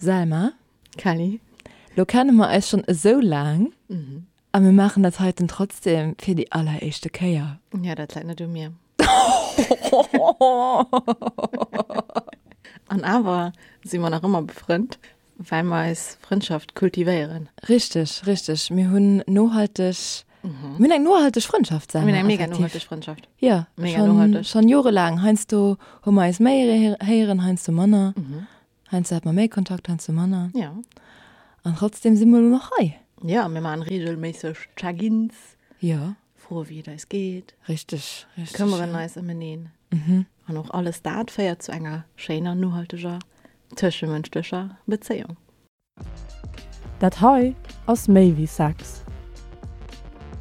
Selma. Kelly. Lo kenne mer eis schonn esou laang a mir maachen dat heiten trotzdem fir déi alleréischte Kéier. Jo, dat läit net u mir. An awer si mer nach ëmmer befrënnt, well mer eis Frëndschaft kultivéieren. Richteg, richteg. Mir hunn nohalteg, mir hunn eng nohalteg Frëndschaft, Selma. Mir hunn eng mega nohalteg Frëndschaft. Jo, mega nohalteg. Schonn jorelaang. Heiansdo hu mer eis méi héieren, heiansdo manner. Heiansdo hat mer méi Kontakt, heiansdo manner. Ja. An trotzdem si mer elo nach hei. Ja, mir maachen reegelméisseg Check-ins. Ja. Froe wéi et eis geet. Richteg, richteg. Këmmeren eis ëm eneen. Mhm. An och alles dat féiert zu enger schéiner, nohalteger tëschemënschlecher Bezéiung. Dat hei ass méi wéi Sex.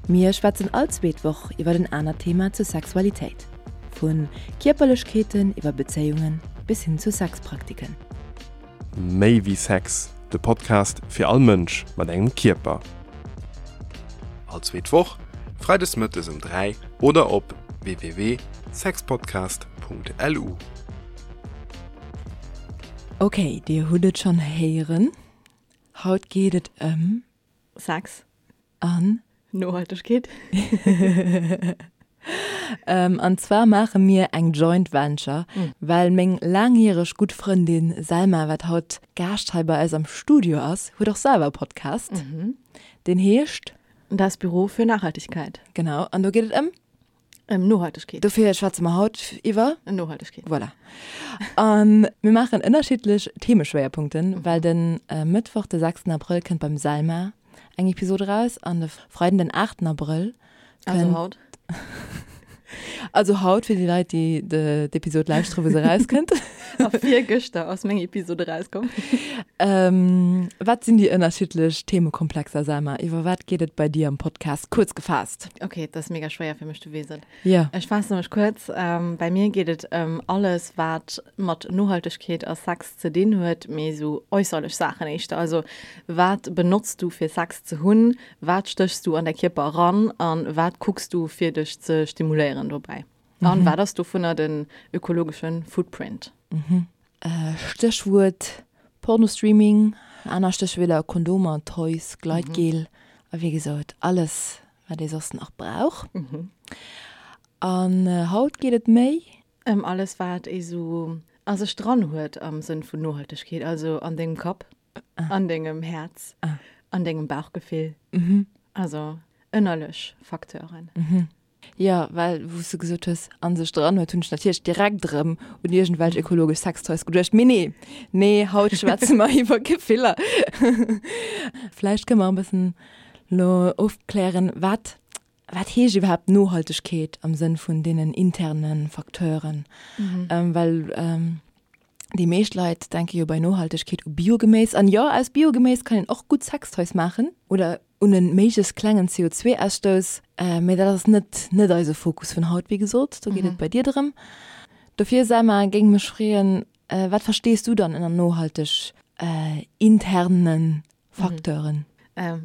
Mir schwätzen all zweet Woch iwwer en anert Thema zur Sexualitéit. Vu Kierperlechkeeten iwwer Bezéiungen bis hin zu Sexpraktiken. Méi wéi Sex, de Podcast fir all Mënsch mat engem Kierper. All zweet Woch, freides mëttes um 3 oder op www.sexpodcast.lu. Ok, dir hutt et schonn héieren, haut geet et ëm. Sex. An. Nohaltegkeet. An zwar maache mir eng Joint Venture, well meng laangjäreg gutt Frëndin Selma, wat haut Gaascht hei bei eis am Studio ass, huet och selwer e Podcast, deen heescht. Das Büro für Nachhaltigkeit. Genau, an do geet et ëm. Ëm Nohaltegkeet. Dofir schwätze mer haut iwwer. Nohaltegkeet. Voilà. A mir maachen ënnerschiddlech Themeschwéierpunkten, well de Mëttwoch, de 6 Abrëll, kënnt beim Selma eng Episod eraus an de Freiden, den 8 Abrëll, kënnt. Also haut. Also haut fir déi Leit, déi d'Episod lauschtere wou se erauskënnt. A virgëschter ass meng Episod erauskomm. Wat sinn déi ënnerschiddlech Themekomplexer, Selma? Iwwer wat geet et bei dir am Podcast, kuerz gefaasst? Ok, dat ass mega schwéier fir mech, du weess et. Jo. Ech faasse mech kuerz. Bei mir geet et ëm alles, wat mat Nohaltegkeet a Sex ze dinn huet, mee esou äusserlech Saachen éischter. Also wat benotz du fir Sex ze hunn? Wat stéchs du an däi Kierper eran a wat kucks du fir dech ze stimuléieren dobäi? An wat ass dovunner den ökologesche Footprint? Stéchwuert Pornostreaming, aner Stéchwierder, Kondomer, Toys, Gleitgel a wéi gesot alles wat ee soss nach brauch. An haut geet et méi. Ëm alles wat ee sou a sech dran huet am Sënn vun Nohaltegkeet, also an dengem Kapp, an dengem Häerz, an dengem Bauchgefill, also ënnerlech Facteuren. Jo, well wou s de gesot hues, a sech dran huet, hunn ech natierlech direkt erëm un iergendwelch ökologesch Sextoys geduecht. Mee nee, nee, haut schwätze mer iwwer Gefiller. Vläicht kënne mer e bëssen elo ofklären, wat, wat heescht iwwerhaapt Nohaltegkeet am Sënn vun deenen interne Facteuren? Well déi meescht Leit denke jo bei Nohaltegkeet u Biogeméis. An jo, aus Biogeméis kann een och gutt Sextoys maachen oder un e méiglechst klengen CO2-Ausstouss. Mee dat ass net net eise Fokus vun haut, wéi gesot. Do geet et bei dir drëm. Dofir, Selma, géing mech freeën, wat verstees du dann ënner nohalteg interne Facteuren?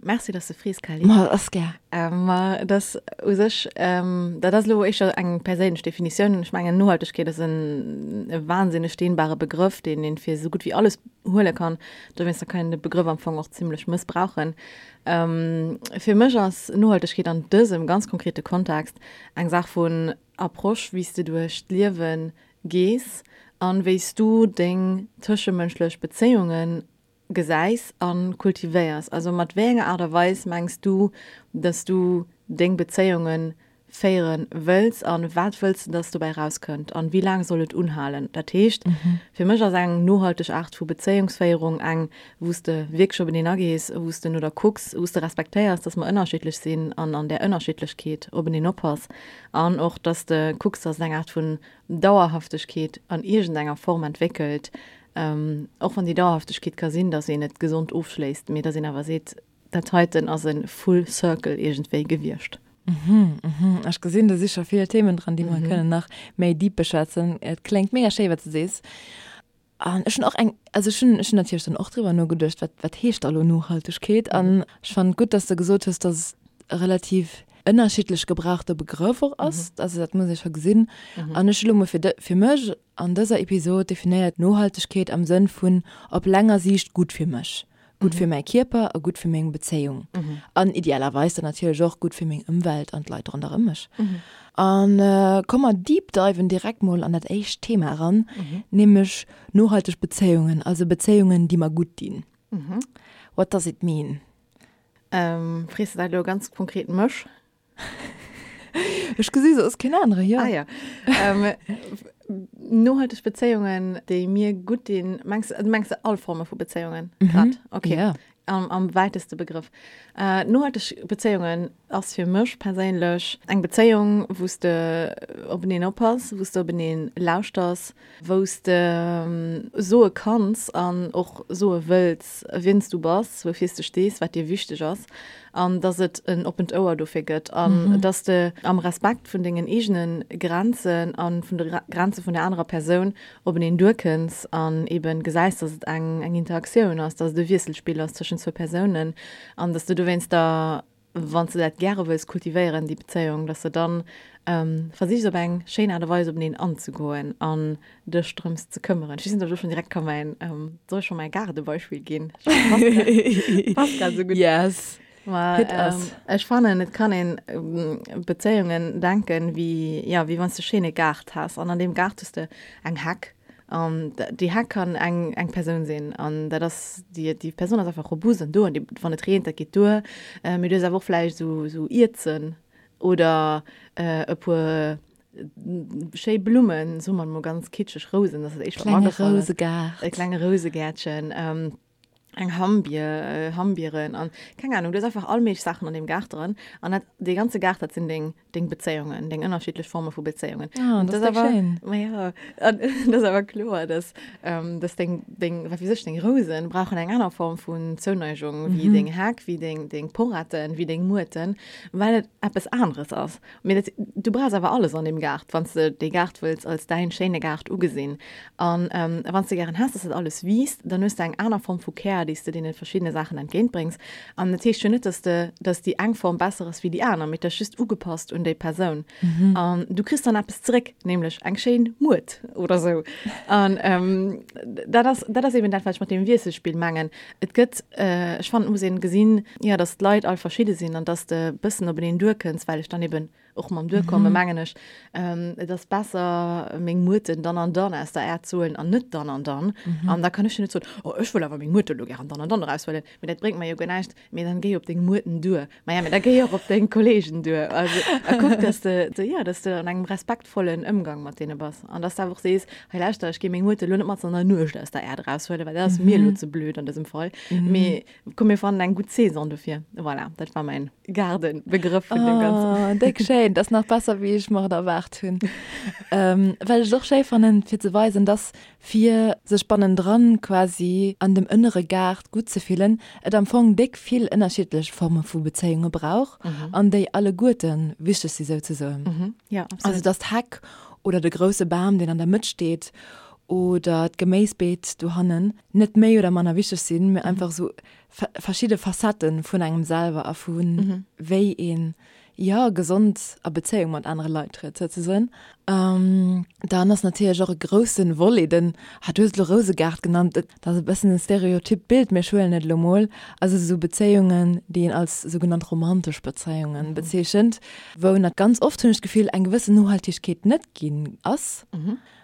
Merci, dass de frees, Kelly. Ma ass gär. Ma et ass u sech, dat ass elo éischter eng perséinlech Definitioun. Ech mengen, Nohaltegkeet ass en e wahnsinneg dehnbare Begrëff, deen een fir esou gutt wéi alles huele kann. Dowéinster kann een de Begrëff am Fong och zimlech mëssbrauchen. Fir mech ass Nohaltegkeet an dësem ganz konkrete Kontext eng Saach vun Approche, wéi s de duerch d'Liewe gees an wéi s du deng tëschemënschlech Bezéiungen gesäis a kultivéiers? Also mat wéi enger Aart a Weis mengs du, dass du deng Bezéiunge féiere wëlls a wat wëlls de, dass dobäi erauskënnt an wéi laang soll et unhalen? Dat heescht, fir mech ass eng nohalteg Aart vu Bezéiungsféierung eng, wou s de wierklech openeen agees, wou s de no der kucks, wou s de respektéiers, dass mer ënnerschiddlech sinn an an där Ënnerschiddlechkeet openeen oppass an och, dass de kucks, dass et eng Aart vun Dauerhaftegkeet an iergendenger Form entwéckelt, Och wann déi Dauerhaftegkeet ka sinn, datt een et gesond ofschléisst, mee datt een awer seet, dat heiten ass e full circle iergendwéi gewiescht. Ech gesinn, do si scho vill Themen dran, déi mer kënnen nach méi deep beschwätzen. Et kléngt mega schéi, wat s de sees. An ech hunn och eng, also ech hunn, ech hunn natierlech dann och driwwer nogeduecht, wat, wat heescht da lo Nohaltegkeet? An ech fannen et gutt, datt s de gesot hues, datt et relativ. ënnerschiddlech gebrauchte Begrëff och ass. Also dat muss ee scho gesinn. An ech hu lo mol fir fir mech an dëser Episod definéiert Nohaltegkeet am Sënn vun op länger Siicht gutt fir mech, gutt fir mäi Kierper a gutt fir meng Bezéiung an idealerweis dann natierlech och gutt fir meng Ëmwelt an d'Leit ronderëm mech. An komm mer deep diven direkt mol an dat éischt Thema eran, nämlech nohalteg Bezéiungen, also Bezéiungen déi mer gutt dinn. What does it mean? Frees de dat elo ganz konkret mech? Ech gesi soss keen anere, jo. Ah ja. Nohalteg Bezéiungen, déi mir gutt dinn, mengs du mengs all Forme vu Bezéiungen grad? Okay. Ja. Am, am wäiteste Begrëff. Nohalteg Bezéiungen ass fir mech perséinlech eng Bezéiung, wou s de openeen oppass, wou s de openeen lauschters, wou s de soe kanns an och soe wëlls, wien s du bass, woufir s de stees, wat dir wichteg ass, an dass et en oppent Ouer dofir gëtt an dass de am Respekt vun dengen eegene Grenzen a vun de Grenze vun der anerer Persoun openeen duerkënns an eeben gesäis, dass et eng eng Interaktioun ass, dass et e Wiesselspill ass tëschent zwou Persounen an dass de dowéinster wann s de dat gäre wëlls kultivéieren, déi Bezéiung, dass de dann versichs op eng schéin Aart a Weis openeen anzegoen an dech drëms ze këmmeren. Ech weess net, ob ech elo schonn direkt ka mäin, soll ech scho mäi Gaardebeispill ginn? Passt passt grad esou gutt. Yes, Ma hit us. ech fannen, et kann een Bezéiungen denken, wéi, jo, wéi wann s de e schéine Gaart häss an an deem Gaart hues de eng Heck An déi Heck kann eng eng Persoun sinn an dat ass déi déi Persoun ass einfach robust an do an déi wann et reent, dat geet duer. Mee du hues awer och vläicht esou esou Ierzen oder e puer schéi Blummen, soe mer emol ganz kitscheg Rousen, dat ass dat éischt wat mer Klenge agefall ass. Rousegaart. E klenge Rousegäertchen. Eng Hammbier, Hammbieren an keng Ahnung, du hues einfach all méiglech Saachen an deem Gaart dran an dat, dee ganze Gaart, dat sinn deng, deng Bezéiungen, deng ënnerschiddlech Forme vu Bezéiungen. Ah, Und dat das ass awer, schéin. ma ja, an dat ass awer kloer, dass, ähm, dass deng, deng, wat weess ech, deng Rousen brauchen eng aner Form vun Zouneigung wéi deng Heck, wéi deng, deng Poretten, wéi deng Muerten, well et eppes aneres ass. Mee dat, du brauchs awer alles an deem Gaart, wann s de dee Gaart wëlls als däin schéine Gaart ugesinn. An wann s de gären häss, dass dat alles wiisst, dann hues de eng aner Form vu Care, déi s de deene verschiddene Saachen entgéintbréngs. An dat heescht jo net, dass de, dass déi eng Form besser ass wéi déi aner, mee et ass just ugepasst un déi Persoun. An du kriss dann eppes zeréck, nämlech eng schéin Muert oder sou. An dat ass, dat ass eben dat, wat ech mat deem Wiesselspill mengen. Et gëtt, ech fannen, et muss een gesinn, jo, dass d'Leit all verschidde sinn an dass de bëssen openeen duerkënns, well ech dann eben och mam Duerkomme mengen ech, et ass besser meng Muerten dann an dann aus der Äerd ze huelen an net dann an dann. An da kann ech jo net soen, oh ech wëll awer meng Muerte elo gären dann an dann eraushuelen, mee dat bréngt mer jo guer näischt. Mee dann géi op deng Muerten duer. Maja, mee da géi och op deng Kollegen duer. Also, a kuck, dass de, jo, dass de an engem respektvollen Ëmgang mat deene bass an dass de awer och sees, Hei lauschter, ech gi meng Muerte elo net mat an der Nuecht aus der Äerd eraushuelen, well dat ass mir elo ze blöd an dësem Fall. Mee komm, mir fannen eng gutt Saison dofir. Voilà, dat war mäin Gaardenbegrëff vun deem Ganzen. Oh, déck schéin. Dat ass nach besser, wéi ech mer et erwaart hunn. Well ech et och schéi fannen, fir ze weisen, dass fir sech bannendran quasi an dem ënnere Gaart gutt ze fillen, et am Fong déck vill ënnerschiddlech Forme vu Bezéiunge brauch an déi alleguerte wichteg si souzesoen. Also dass d'Heck oder de grousse Bam, deen an der Mëtt steet oder d'Geméisbeet dohannen net méi oder manner wichteg sinn, mee einfach esou verschidde Facettë vun engem selwer a vu wéi een jo, gesond a Bezéiung mat anere Leit trëtt, souzesoen. Dann ass natierlech och e grousse Volet den, ah, du hues et elo Rousegaart genannt, dat ass e bëssen e stereotypt Bild, mee ech huelen et elo mol, also esou Bezéiungen, déi een als sougenannt romantesch Bezéiungen bezeechent, wou nat ganz oft, hunn ech d'Gefill, eng gewëssen Nohaltegkeet net ginn ass.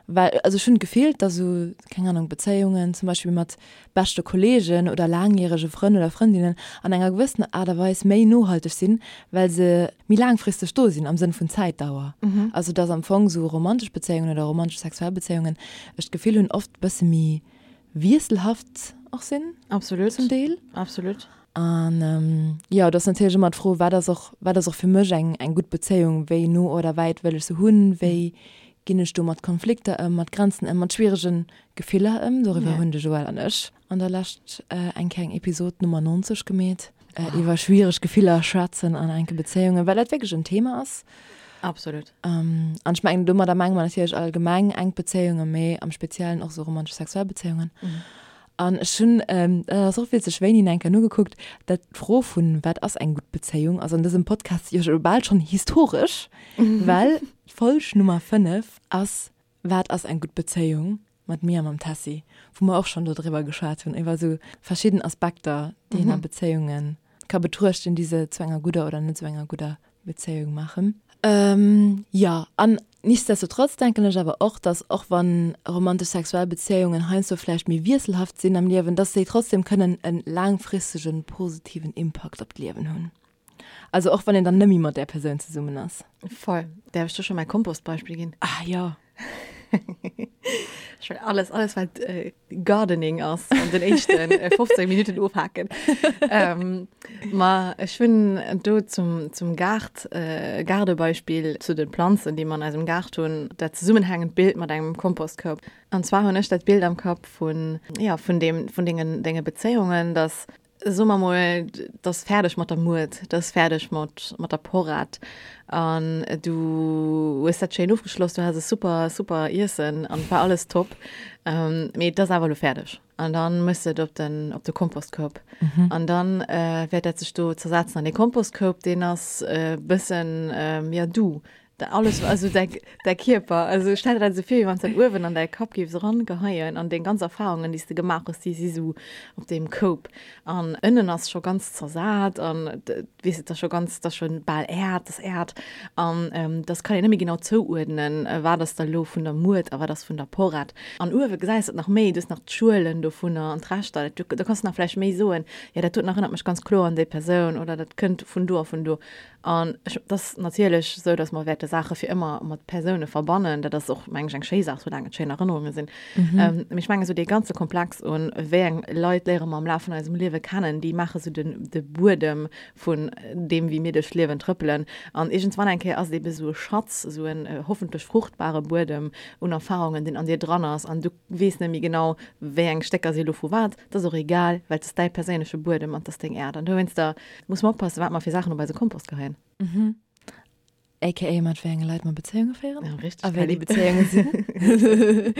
Well, also ech hunn d'Gefill, dass esou, keng Ahnung, Bezéiungen zum Beispill mat beschte Kollegen oder laangjärege Frënn oder Frëndinnen an enger gewëssener Aart a Weis méi nohalteg sinn, well se méi laangfristeg do sinn am Sënn vun Zäitdauer. Also dass am Fong esou romantesch Bezéiungen oder romantesch sexuell Bezéiungen, ech d'Gefill hunn, oft e bësse méi wiesselhaft och sinn. Absolut. Zum Deel. Absolut. An jo, et ass natierlech ëmmer d'Fro, wat ass och, wat ass och fir mech eng, eng gutt Bezéiung, wéi no oder wäit wëll ech se hunn, wéi ginn ech do mat Konflikter ëm, mat Grenzen ëm, mat schwierege Gefiller ëm. Doriwwer hunn de Joël an ech an der Lescht eng kleng Episod Nummer 90 gemeet, iwwer schwiereg Gefiller schwätzen an enke Bezéiungen, well dat wierklech en Thema ass. Absolut. An ech mengen, domadder menge mer natierlech allgemeng enk Bezéiungen, mee am Speziellen och esou romantesch sexuell Bezéiungen. An ech hunn, dat ass och witzeg, wéini eng Kéier nogekuckt, dat d'Fro vun wat ass eng gutt Bezéiung ass an dësem Podcast jo scho bal schonn historesch, well d'Folg Nummer 5 ass Wat ass eng gutt Bezéiung? mat mir a mam Tessy, wou mer och schonn dodriwwer geschwat hunn, iwwer esou verschidden Aspekter, déi een a Bezéiunge ka betruechten, déi se zu enger gudder oder net esou enger gudder Bezéiung maachen. Jo, an nichtsdestotrotz denken ech awer och, dass och wann romantesch sexuell Bezéiungen heiansdo vläicht méi wiesselhaft sinn am Liewen, dass déi trotzdem kënnen e laangfristegen positiven Impakt op d'Liewen hunn. Also och wann een dann nëmme mat där Persoun zesummen ass. Voll. Däerf ech do scho mäi Kompostbeispill ginn? Ah jo. Ech well alles, alles wat äh, Gardening ass an den éischten 15 Minuten ofhaken. ähm, ma ech hunn do zum, zum Gaart, äh, Gaardebeispill zu den Planzen, déi mer an eisem Gaart hunn, dat zesummenhängend Bild mat engem Kompostkoup. An zwar hunn ech dat Bild am Kapp vun, ja, vun dem, vun dengen, denge Bezéiungen, dass Soe mer mol, et ass fäerdeg mat der Muert, et ass fäerdeg mat, mat der Porrett an du hues dat schéin ofgeschloss, du has e super, super Iessen an et war alles top, mee et ass awer elo fäerdeg an dann méchs de et op den, op de Kompostkoup an dann wäert dat sech do zersetzen an dee Kompostkoup, deen ass e bëssen, jo, du, Alles, also däi, däi Kierper, also stell der dat esou vir, wéi wann s dat uewen an däi Kapp géifs erangeheien an deng ganz Erfarungen, déi s de gemaach hues, déi si sou op deem Koup. An ënnen ass scho ganz zersat an weess et ass scho ganz, dat ass scho bal Äerd, dat ass Äerd an dass kann een net méi genau zouuerdnen, wat ass da lo vun der Muert a wat ass vun der Porrett. An uewe gesäis de et nach méi, du hues nach d'Schuelen dovunner an d'Reschter, do kanns de nach vläicht méi soen, jo dat doten erënnert mech ganz kloer un déi Persoun oder dat kënnt vun do a vun do. An ech, et ass natierlech esou, datt mer wäerte Saache fir ëmmer mat Persoune verbannen. Dat ass och, meng ech, eng schéi Saach, soulaang et schéin Erënnerunge sinn. Mee ech mengen, esou dee ganze Komplex un, wéi eng Leit léiere mer am Laf vun eisem Liewe kennen, déi maache sou den, de Buedem vun deem, wéi mir duerch d'Liewen trëppelen. An iergendswann eng Kéier ass et ebe sou e Schatz, esou en hoffentlech fruchtbare Buedem un Erfarungen, deen an dir dran ass. An du weess net méi genau, wéi eng Stécker si lo vu wat. Dat ass och egal, well et ass däi perséinleche Buedem an et ass deng Äerd. An dowéinster Muss mer oppassen, wat mer fir Saachen op eise Kompost geheien. Mhm. AKA mat wéi enge Leit mer Bezéiunge féieren. Ja, richtig. A wéi déi Bezéiunge sinn.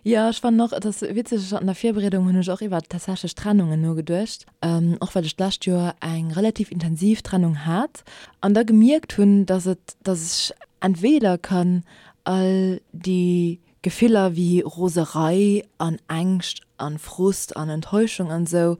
Jo, ech fannen och, et ass witzeg, an der Virbereedung hunn ech och iwwer tatsächlech Trennungen nogeduecht, och well ech d'lescht Joer eng relativ intensiv Trennung hat an da gemierkt hunn, dass et, dass ech entweder kann all déi Gefiller wéi Roserei an Ängscht an Frust an Enttäuschung an esou,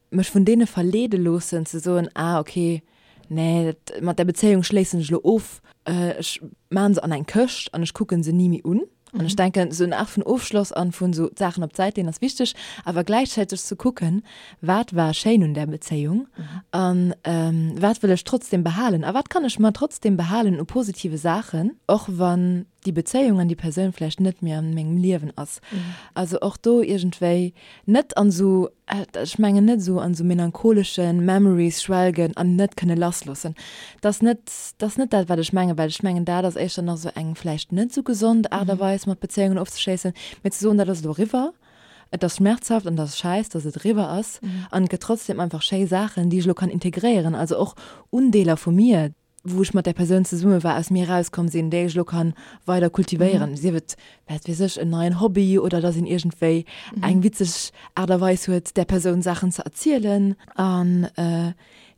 mech vun deene verleede loossen ze soen, ah ok, nee, dat mat där Bezéiung schléissen ech elo of, ech maachen se an eng Këscht an ech kucken se ni méi un. An ech denken, esou eng Aart vun Ofschloss an vun esou d'Saachen op d'Säit leeën ass wichteg, awer gläichzäiteg ze kucken, wat war schéin un där Bezéiung an wat wëll ech trotzdem behalen a wat kann ech mer trotzdem behalen u positive Saachen, och wann déi Bezéiung an déi Persoun vläicht net méi an mengem Liewen ass. Also och do iergendwéi net an esou, ech mengen net esou an esou melancholesche Memories schwelgen an net kënne lassloossen. Dat ass net, dat ass net dat, wat ech mengen, well ech mengen, dat ass éischter nach esou eng vläicht net esou gesond Aart a Weis, mat Bezéiungen ofzeschléissen, mee ze soen, dat ass elo eriwwer, et ass schmerzhaft an et ass schäiss, dass et eriwwer ass an et gëtt trotzdem einfach schéi Saachen, déi ech elo kann integréieren, also och Undeeler vu mir, wou ech mat där Persoun zesumme war, aus mir erauskomm sinn, déi ech elo kann weider kultivéieren, sief et, wat weess ech, en neien Hobby oder dass een iergendwéi eng witzeg Aart a Weis huet, där Persoun Saachen ze erzielen. An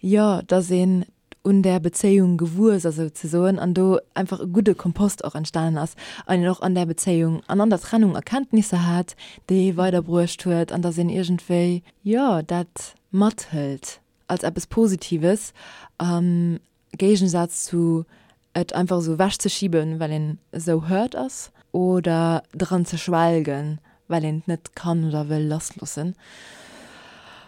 jo, dass een un där Bezéiung gewuess ass souzesoen an do einfach e gudde Kompost och entstanen ass an een och an där Bezéiung an an der Trennung Erkenntnisser hat, déi ee weiderbruecht huet an dass een iergendwéi, jo, dat mathëlt. als eppes Positives, am Géigensaz zu et einfach esou ewechzeschiben, well een esou hurt ass, oder dran ze schwelgen, well een et net kann oder wëll lassloossen.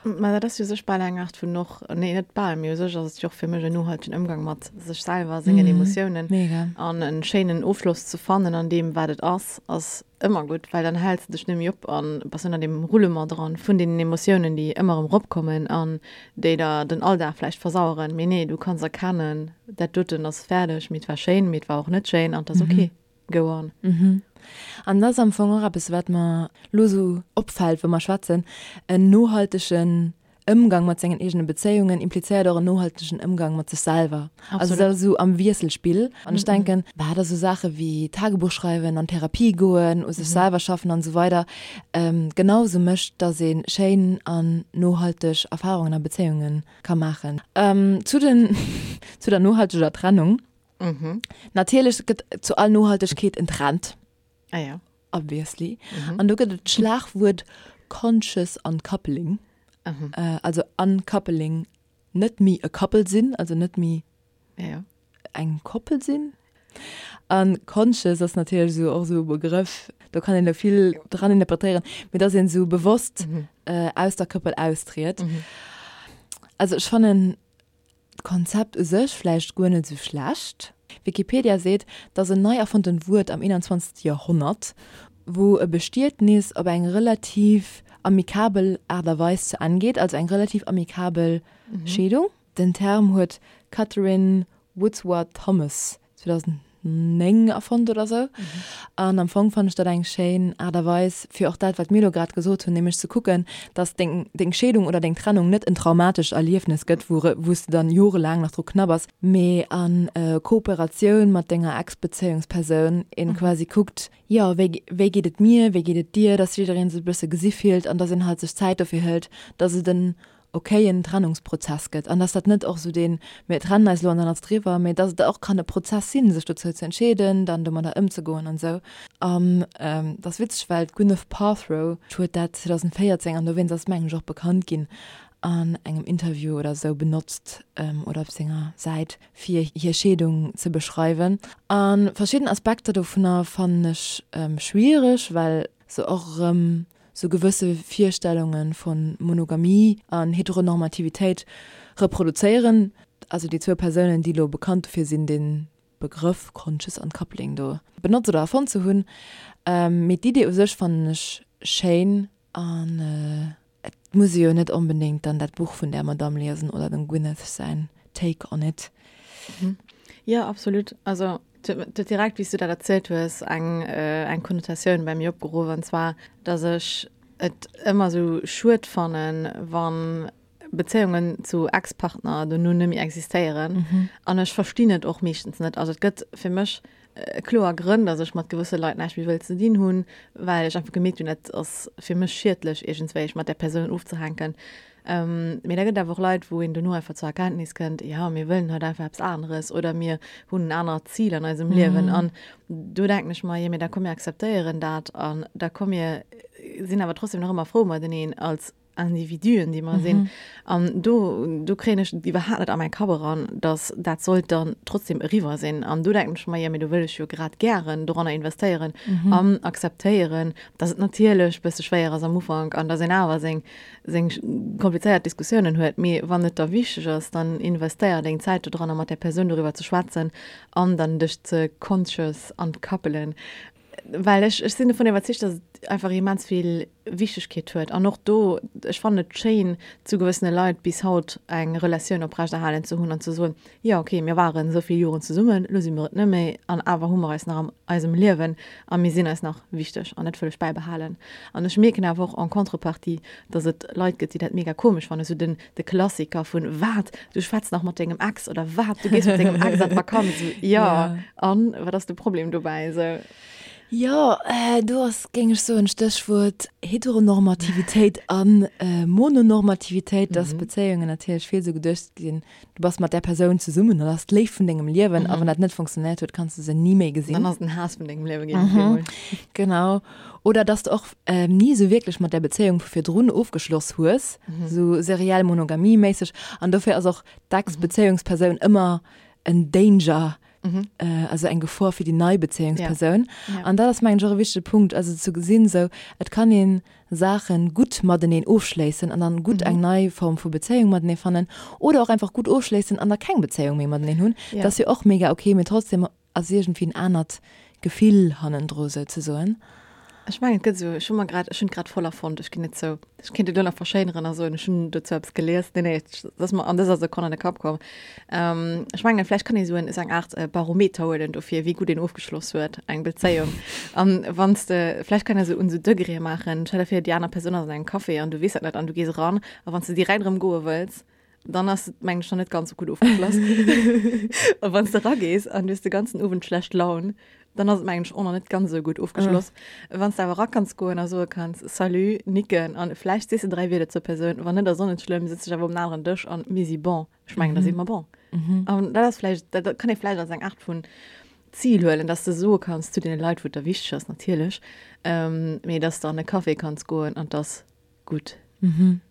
Mä dat ass jo u sech bal eng Aart vun och, nee net bal, mee u sech ass et jo och fir mech en nohaltegen Ëmgang mat sech selwer, sengen Emotiounen. Mega. An en schéinen Ofschloss ze fannen an deem, wat et ass, ass Ëmmer gutt, well dann häls de dech net méi op an bass net an deem Roulement dran vun deenen Emotiounen, déi ëmmer erëm eropkommen an déi der den Alldag vläicht versaueren. Mee nee, du kanns erkennen, dat doten ass fäerdeg, mee et war schéin, mee et war och net schéin an et ass ok. Go on. An dat ass am Fong och eppes, wat mer elo esou opfält, wou mer schwätzen, en nohaltegen. Ëmgang mat sengen eegene Bezéiungen implizéiert och en nohaltegen Ëmgang mat sech selwer. Also dat ass esou am Wiesselspill. An ech denken, bah, dat esou Saache wéi Tagebuch schreiwen, an Therapie goen, u sech selwer schaffen an esou weider genau esou mécht, dass ee schéin an nohalteg Erfarungen a Bezéiunge ka maachen. Zu den, zu der nohalteger Trennung. Natierlech gëtt zu all Nohaltegkeet en Trend. Ah ja. Obviously. Mhm. An do gëtt et d'Schlagwuert conscious uncoupling. Mhm. Äh, also uncoupling, net méi e Couple sinn, also net méi ja, ja. eng Koppel sinn. An conscious ass natierlech esou och esou e Begrëff, do kann een elo vill dran interpretéieren, mee dass een esou bewosst mhm. äh, aus der Koppel austritt. Mhm. Also ech fannen D'Konzept u sech vläicht guer net esou schlecht. Wikipedia seet, 't ass en nei erfonntent Wuert am 21. Joerhonnert, wou e Bestietnis op eng relativ amikabel Aart a Weis zu Enn geet, also eng relativ amikabel Scheedung. Den Term huet d'Katherine Woodsworth Thomas 2009 erfonnt oder sou. An am Fong fannen ech dat eng schéin Aart a Weis, fir och dat, wat mir elo grad gesot hunn, nämlech ze kucken, dass deng, deng Scheedung oder deng Trennung net en traumatescht Erliefnes gëtt, wou, wou s de dann jorelaang nach dru knabbers, mee a Kooperatioun mat denger Ex-Bezéiungspersoun een quasi kuckt, jo, wéi, wéi geet et mir, wéi geet et dir, dass jidderee sech e bësse gesi fillt an dass een halt sech Zäit dofir hëlt, dass et en okayen Trennungsprozess gëtt an dass dat net och esou deen mir trennen eis elo an dann ass et eriwwer, mee dass et och kann e Prozess sinn, sech dozou ze entscheeden, dann domadder ëmzegoen an esou. An et ass witzeg, well d'Gwyneth Paltrow huet dat 2014, an dowéinst ass et mengen ech och bekannt ginn, an engem Interview oder esou benotzt oder op senger Säit, fir hir Scheedung ze beschreiwen. A verschidden Aspekter dovunner fannen ech schwiereg, well se och erëm sou gewësse Virstellunge vu Monogamie an Heteronormativitéit reproduzéieren. Also déi zwou Persounen, déi elo bekannt dofir sinn, de Begrëff Conscious Uncoupling do benotzt oder erfonnt ze hunn. Mee d'Idee u sech fannen ech schéin an et muss ee jo net onbedéngt dann dat Buch vun där Madame liesen oder dem Gwyneth säin Take on it. Jo, absolut. Also Et huet direkt, wéi s du dat erzielt hues, eng, eng Konnotatioun bei mir opgeruff, an zwar, dass ech et ëmmer esou schued fannen, wa Bezéiungen zu Ex-Partner dono net méi existéieren. An ech verstinn et och meeschtens net. Also et gëtt fir mech kloer Grënn, dass ech mat gewësse Leit näischt méi wëll ze dinn hunn, well ech einfach gemierkt hunn, dat ass fir mech schiedlech iergendswéi, mat där Persoun ofzehänken. Mee da gëtt et awer och Leit, wou een dono einfach zur Erkenntnis kënnt, jo, mir wëllen haut einfach eppes aneres oder mir hunn en anert Zil an eisem Liewen. An do denken ech mer, jo, mee da komm mir akzeptéieren dat an da komm mir sinn awer trotzdem nach ëmmer frou mateneen als Individuen, déi mer sinn. An do, do kréien ech et iwwerhaapt net a mäi Kapp eran, datt dat sollt dann trotzdem eriwwer sinn. An do denken ech mer, jo, mee do wëll ech jo grad gären doranner investéieren an akzeptéieren, datt et natierlech e bësse schwéier ass am Ufank an datt een awer seng seng komplizéiert Diskussiounen huet, mee wann et der wichteg ass, dann investéier deng Zäit dodranner mat där Persoun doriwwer ze schwätzen an dann dech ze conscious uncoupelen, well ech ech sinn dovun iwwerzeegt, dass et einfach immens vill Wichtegkeet huet an och do, ech fannen et schéin zu gewëssene Leit bis haut eng Relatioun oprechterhalen ze hunn an ze soen, Jo, ok, mir waren esou vill Joren zesummen, elo si mer et net méi, an awer hu mer eis nach am eisem Liewen a mir sinn eis nach wichteg an dat wëll ech bäibehalen. An ech mierken awer och en contrepartie, dass et Leit gëtt, déi dat mega komesch fannen, esou den de Klassiker vun, Wat, du schwätz nach mat dengem Ex? oder Wat, du gees mat dengem Ex an d'Vakanz? Esou, jo, an wat ass de Problem dobäi? Esou. Jo, do ass, géing ech soen, Stéchwuert Heteronormativitéit a Mononormativitéit, dass Bezéiungen natierlech vill esou geduecht ginn, Du bass mat där Persoun zesummen, dat ass d'Léift vun dengem Liewen, a wann dat net funktionéiert huet, kanns du se ni méi gesinn. Dann ass et den Haass vun dengem Liewe ginn op eemol. Genau. Oder dass du och ni esou wierklech mat där Bezéiung vu virdrun ofgeschloss hues, esou seriell Monogamie-méisseg. An dofir ass och d'Ex-Bezéiungspersoun ëmmer en Danger, also eng Gefor fir déi nei Bezéiungspersoun. An dat ass, mengen ech, och e wichtege Punkt, also ze gesinn, esou, et kann een Saachen gutt mateneen ofschléissen an dann gutt eng nei Form vu Bezéiung matenee fannen oder och einfach gutt ofschléissen an da keng Bezéiung méi mateneen hunn. Dat ass jo och mega ok, mee trotzdem ass iergendwéi en anert Gefill hannendru souzesoen. Ech mengen, et gëtt esou, ech hu mer grad, ech hunn et grad voll erfonnt, ech ginn et zou. Ech kéint et elo nach verschéineren a soen, ech hunn dozou eppes gelies. Nee, nee, et ass mer an dëser Sekonn an de Kapp komm. Ech mengen, vläicht kann ee sou en, esou eng Aart Barometer huelen dofir, wéi gutt een ofgeschloss huet, eng Bezéiung. An wann s de, vläicht kann ee sou un sou Degré maachen, stell der vir, déi aner Persoun ass an engem Café an du weess dat net an du gees eran a wann s de direkt erëm goe wëlls, dann ass et, mengen ech, nach net ganz sou gutt ofgeschloss. A wann s de eragees an du hues de ganzen Owend schlecht Laun, dann ass et, mengen ech, och nach net ganz esou gutt ofgeschloss. Wann s de awer era kanns goen a soe kanns, Salut, nicken an vläicht sees de 3 Wierder zur Persoun, wann net, ass och net schlëmm, sëtz dech awer um aneren Dësch an mir si bon. Ech mengen, da si mer bon. An dat ass vläicht, dat kann ee vläicht als eng Aart vun Zil huelen, dass de soe kanns zu deene Leit, wou et der wichteg ass natierlech, mee dass de an e Café kanns goen an 't ass gutt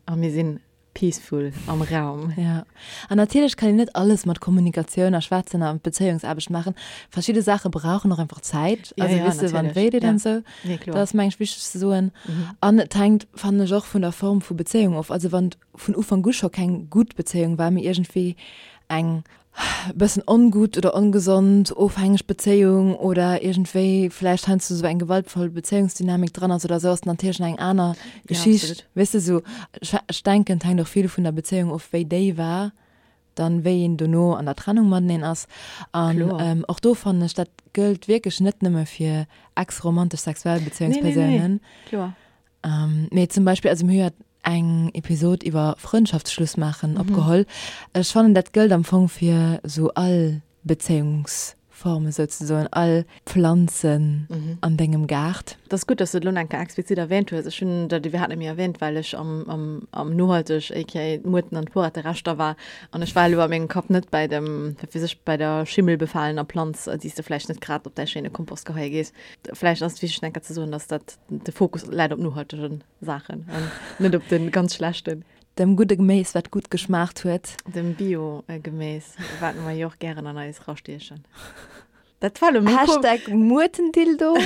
a mir sinn peaceful am Raum. Ja. An natierlech kann een net alles mat Kommunikatioun a Schwätzen a Bezéiungsaarbecht maachen. Verschidde Saache brauchen och einfach Zäit. Ja, Also ja, weess de, wann natierlech. wéi deet Ja. an esou. Nee, kloer. Dat ass meng ech wichteg ze soen. An et hänkt, fannen ech, och vun der Form vu Bezéiung of. Also wann et vun Ufank u scho keng gutt Bezéiung war, mee iergendwéi eng bëssen ongutt oder ongesond ofhängeg Bezéiung oder iergendwéi vläicht heiansdo esou eng gewaltvoll Bezéiungsdynamik dran ass oder esou, ass natierlech nach eng aner Geschicht. Ja, absolut. Weess de, esou, ech denken, et hänkt och vill vun der Bezéiung of, wéi déi war, dann wéi een dono an der Trennung mateneen ass. An Kloer. och do fannen ech, dat gëllt wierklech net nëmme fir ex-romantesch sexuell Nee, nee, nee, Bezéiungspersounen. kloer. Mee zum Beispill, also mir hu jo eng Episod iwwer Frëndschaftsschluss maachen opgeholl. Ech fannen, dat gëllt am Fong fir esou all Bezéiungsforme souzesoen, all Pflanzen an dengem Gaart. Et ass gutt, dass du et elo nach eng Kéier explizit erwähnt hues. Ech hunn dat iwwerhaapt net méi erwähnt, well ech am, am, am nohalteg, aka d'Muerten an d'Porettereschter war. An ech war elo a mengem Kapp net bäi dem, wat weess ech, bäi der schimmelbefalener Planz, déi s de vläicht net grad op däi schéine Kompost geheie gees. Vläicht ass et wichteg, nach eng Kéier ze soen, dass dat de Fokus läit op nohaltegen Saachen an net op de ganz schlechten. Dem gudde Geméis, wat gutt geschmaacht huet. Dem Bio-Geméis, wat mer jo och gären an eis rastiechen. Dat war elo méi komesch. Hashtag Muertendildo.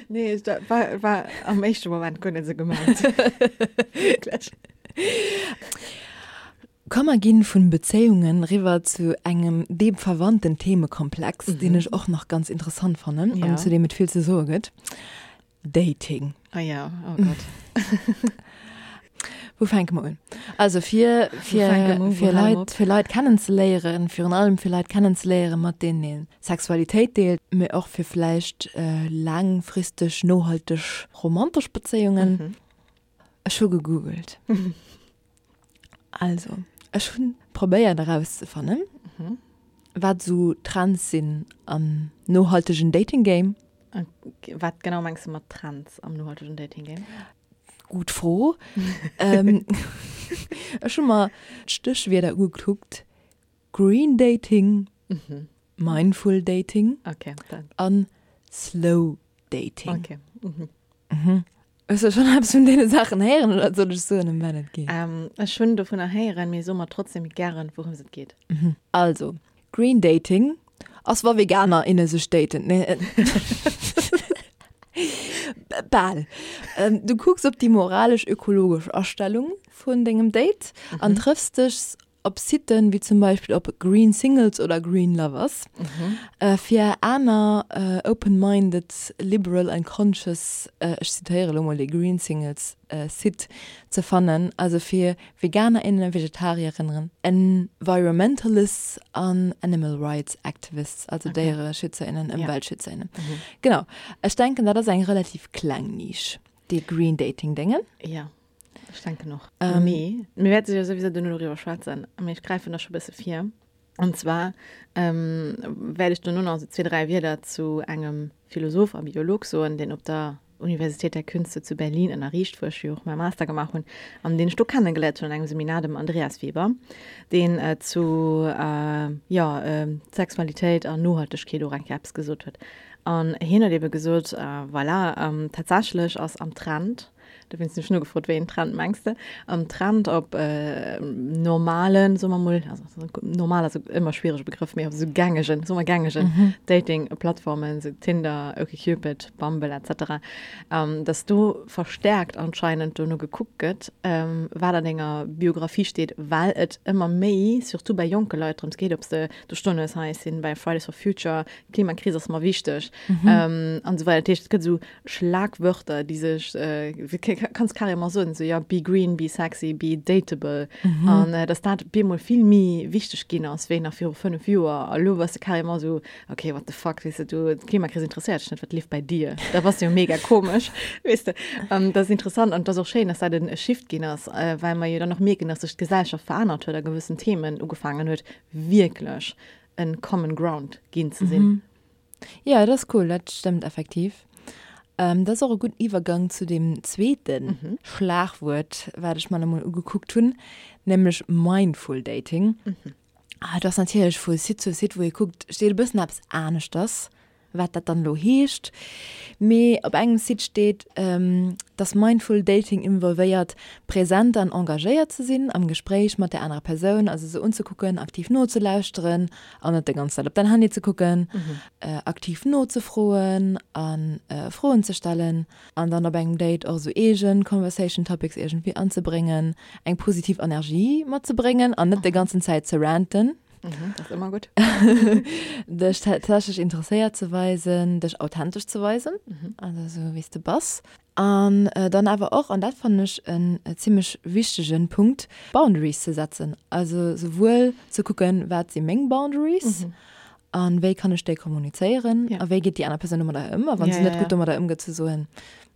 Nee, dat war, war am éischte Moment guer net esou gemengt. Wierklech. Komm mer ginn vun Bezéiungen riwwer zu engem deem verwandten Themekomplex, deen ech och nach ganz interessant fannen an zu deem et vill ze soe gëtt. Dating. Ah ja, oh Gott. Wou fänke mer un? Also fir, fir, fir Leit, fir Leit kennenzeléieren, virun allem fir Leit kennenzeléieren, mat deenen ee Sexualitéit deelt, mee och fir vläicht laangfristeg, nohalteg romantesch Bezéiungen. Ech hu gegoogelt. Also, ech hunn probéiert erauszefannen, wat esou Trends sinn am nohaltegen Dating Game. Wat genau mengs de mat Trends am nohaltegen Dating Game? Gutt Fro. Ech hu mer d'Stéchwierder ugekuckt, Green Dating, Mindful Dating an Slow Dating. Okay. Hues de schonn eppes vun deene Saachen héieren oder soll ech soen, ëm wat et geet? Ech hunn dovunner héieren, mee so mer trotzdem gären, wourëms et geet. Also, Green Dating ass, wa Veganer, inne sech daten. Nee, bal. Du kucks op déi moralesch-ökologesch Astellung vun dengem Date an trëffs dech Op Siten wéi zum Beispill op Green Singles oder Green Lovers, fir aner open-minded, liberal and conscious, ech zitéiere lo mol dee Green Singles Site, ze fannen, also fir Veganerinnen, Vegetarierinnen, Environmentalists an Animal Rights Activists, also Déiereschützerinnen, Ëmweltschützerinnen. Genau. Ech denken, dat ass eng relativ kleng Nisch, dee Green Dating Déngen. Jo. Ech denken och. Ähm, Mee mir wäerte jo souwisou duerno doriwwer schwätzen, mee ech gräifen da scho bësse vir. An zwar ähm, wäert ech duerno nach esou zwee, dräi Wierder zu engem Philosoph a Biolog soen, deen op der Universität der Künste zu Berlin ënnerriicht, wou ech jo och mäi Master gemaach hunn an deen ech do kennegeléiert hunn an engem Seminar, dem Andreas Weber, deen äh, zu äh, jo, äh, Sexualitéit an Nohaltegkeet och eng Kéier eppes gesot huet. An hien huet ebe gesot, äh, voilà, ähm, tatsächlech ass am Trend. Dowéinst hunn ech nogefrot, wéi een Trend mengs de? An Trend op normalen, soe mer mol, also normal ass ëmmer e schwierege Begrëff, mee op esou gängegen, soe mer gängegen Dating-Plattformen, esou Tinder, OkCupid, Bumble et cetera, dass do verstärkt anscheinend dono gekuckt gëtt, wat an denger Biografie steet, well et ëmmer méi, surtout bei jonke Leit, drëms geet, ob s de do stoen hues, hei ech sinn bei Fridays for Future, Klimakris ass mer wichteg an esou weider. Dat heescht, et gëtt esou Schlagwörter, déi sech, kanns carrément soen, esou, ja, be green, be sexy, be dateable. An dass dat op eemol vill méi wichteg ginn ass, wéi nach viru 5 Joer. A lo bass de carrément esou, okay, what the fuck, weess de, du, d'Klimakris interesséiert dech net, wat leeft bei dir? Da bass de jo mega komesch, weess de. An dat ass interessant an et ass och schéin, dass dat e Shift ginn ass, well mer jo dann och mierken, dass sech d'Gesellschaft verännert huet a gewëssen Themen ugefaangen huet, wierklech en common ground ginn ze sinn. Jo, dat ass cool, dat stëmmt effektiv. Dat ass och e gudden Iwwergang zu deem zweete Schlagwuert, wat ech mer nach emol ugekuckt hunn, nämlech Mindful Dating. Dat ass natierlech vu Site zu Site, wou ee kuckt, steet e bëssen eppes aneschters, wat dat dann elo heescht. Mee op engem Site steet, dass Mindful Dating involvéiert, present an engagéiert ze sinn am Gespréich mat där anerer Persoun, also se unzekucken, aktiv nozelauschteren an net déi ganz Zäit op däin Handy ze kucken, aktiv nozefroen a Froen ze stellen an dann op engem Date och esou eegen Conversation Topics iergendwéi anzebréngen, eng positiv Energie matzebréngen an net déi ganzen Zäit ze ranten. Dat ass ëmmer gutt. Dech tatsächlech interesséiert ze weisen, dech authentesch ze weisen, also esou wéi s de bass. An dann awer och, an dat fannen ech en zimlech wichtegen Punkt, Boundaries ze setzen. Also souwuel ze kucken, wat si meng Boundaries a wéi kann ech déi kommunizéieren a wéi geet déi aner Persoun domadder ëm. A wa se net gutt domadder ëmgeet, ze soen,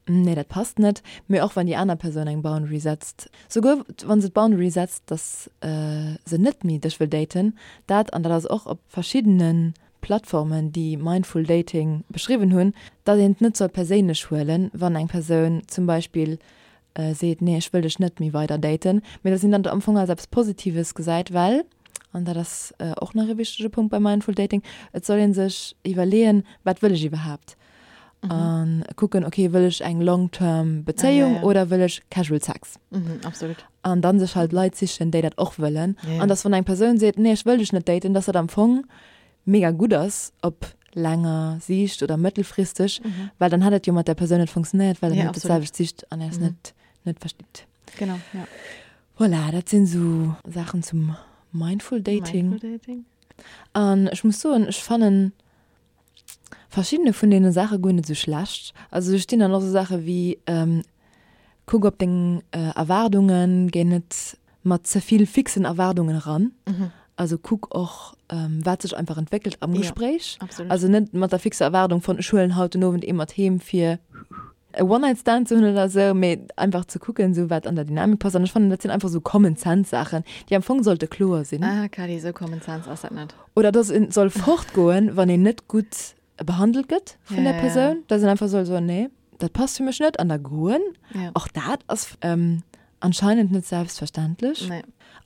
nee dat passt net. Mee och wann déi aner Persoun eng Boundary setzt, souguer wa se d'Boundary setzt, dass se net méi dech wëll daten, dat, an dat ass och op verschiddene Plattformen, déi Mindful Dating beschriwwen hunn, datt een et net soll perséinlech huelen, wann eng Persoun zum Beispill seet, nee ech wëll dech net méi weider daten, mee datt een dat am Fong als eppes Positives gesäit, well, an dat ass och nach e wichtege Punkt bei Mindful Dating, et soll ee sech iwwerleeën, wat wëll ech iwwerhaapt? A kucken, okay, wëll ech eng long term Bezéiung oder wëll ech casual Sex? Absolut. An dann sech halt Leit sichen, déi dat och wëllen. An dass wann eng Persoun seet, nee ech wëll dech net daten, dass dat am Fong mega gutt ass op laanger Siicht oder mëttelfristeg, well dann hätt et jo mat där Persoun net funktionéiert, well der net dat selwecht sicht an är net net verstitt. Genau, ja. Voilà, dat sinn esou Saachen zum Mindful Dating. Mindful Dating. An ech muss soen, ech fannen verschiddene vun deene Saache guer net esou schlecht. Also do stinn dann och esou Saache wéi, kuck op deng Erwaardungen, géi net mat ze vill fixen Erwaardungen eran. Also kuck och, wat sech einfach entwéckelt am Gespréich. Also net mat der fixer Erwaardung von ech huelen haut den Owend ee mat heem fir e One-Night-Stand ze hunn oder esou, mee einfach ze kucken, esou wat an der Dynamik passt. An ech fannen, dat sinn einfach esou Common-Sense-Saachen, déi am Fong sollte kloer sinn. Ah, Kally, esou Common Sense ass dat net. Oder dass een soll fortgoen, wann een net gutt behandelt gëtt vun der Persoun, dass een einfach soll soen, nee, dat passt fir mech net an da goen. Och dat ass anscheinend net selbstverständlech.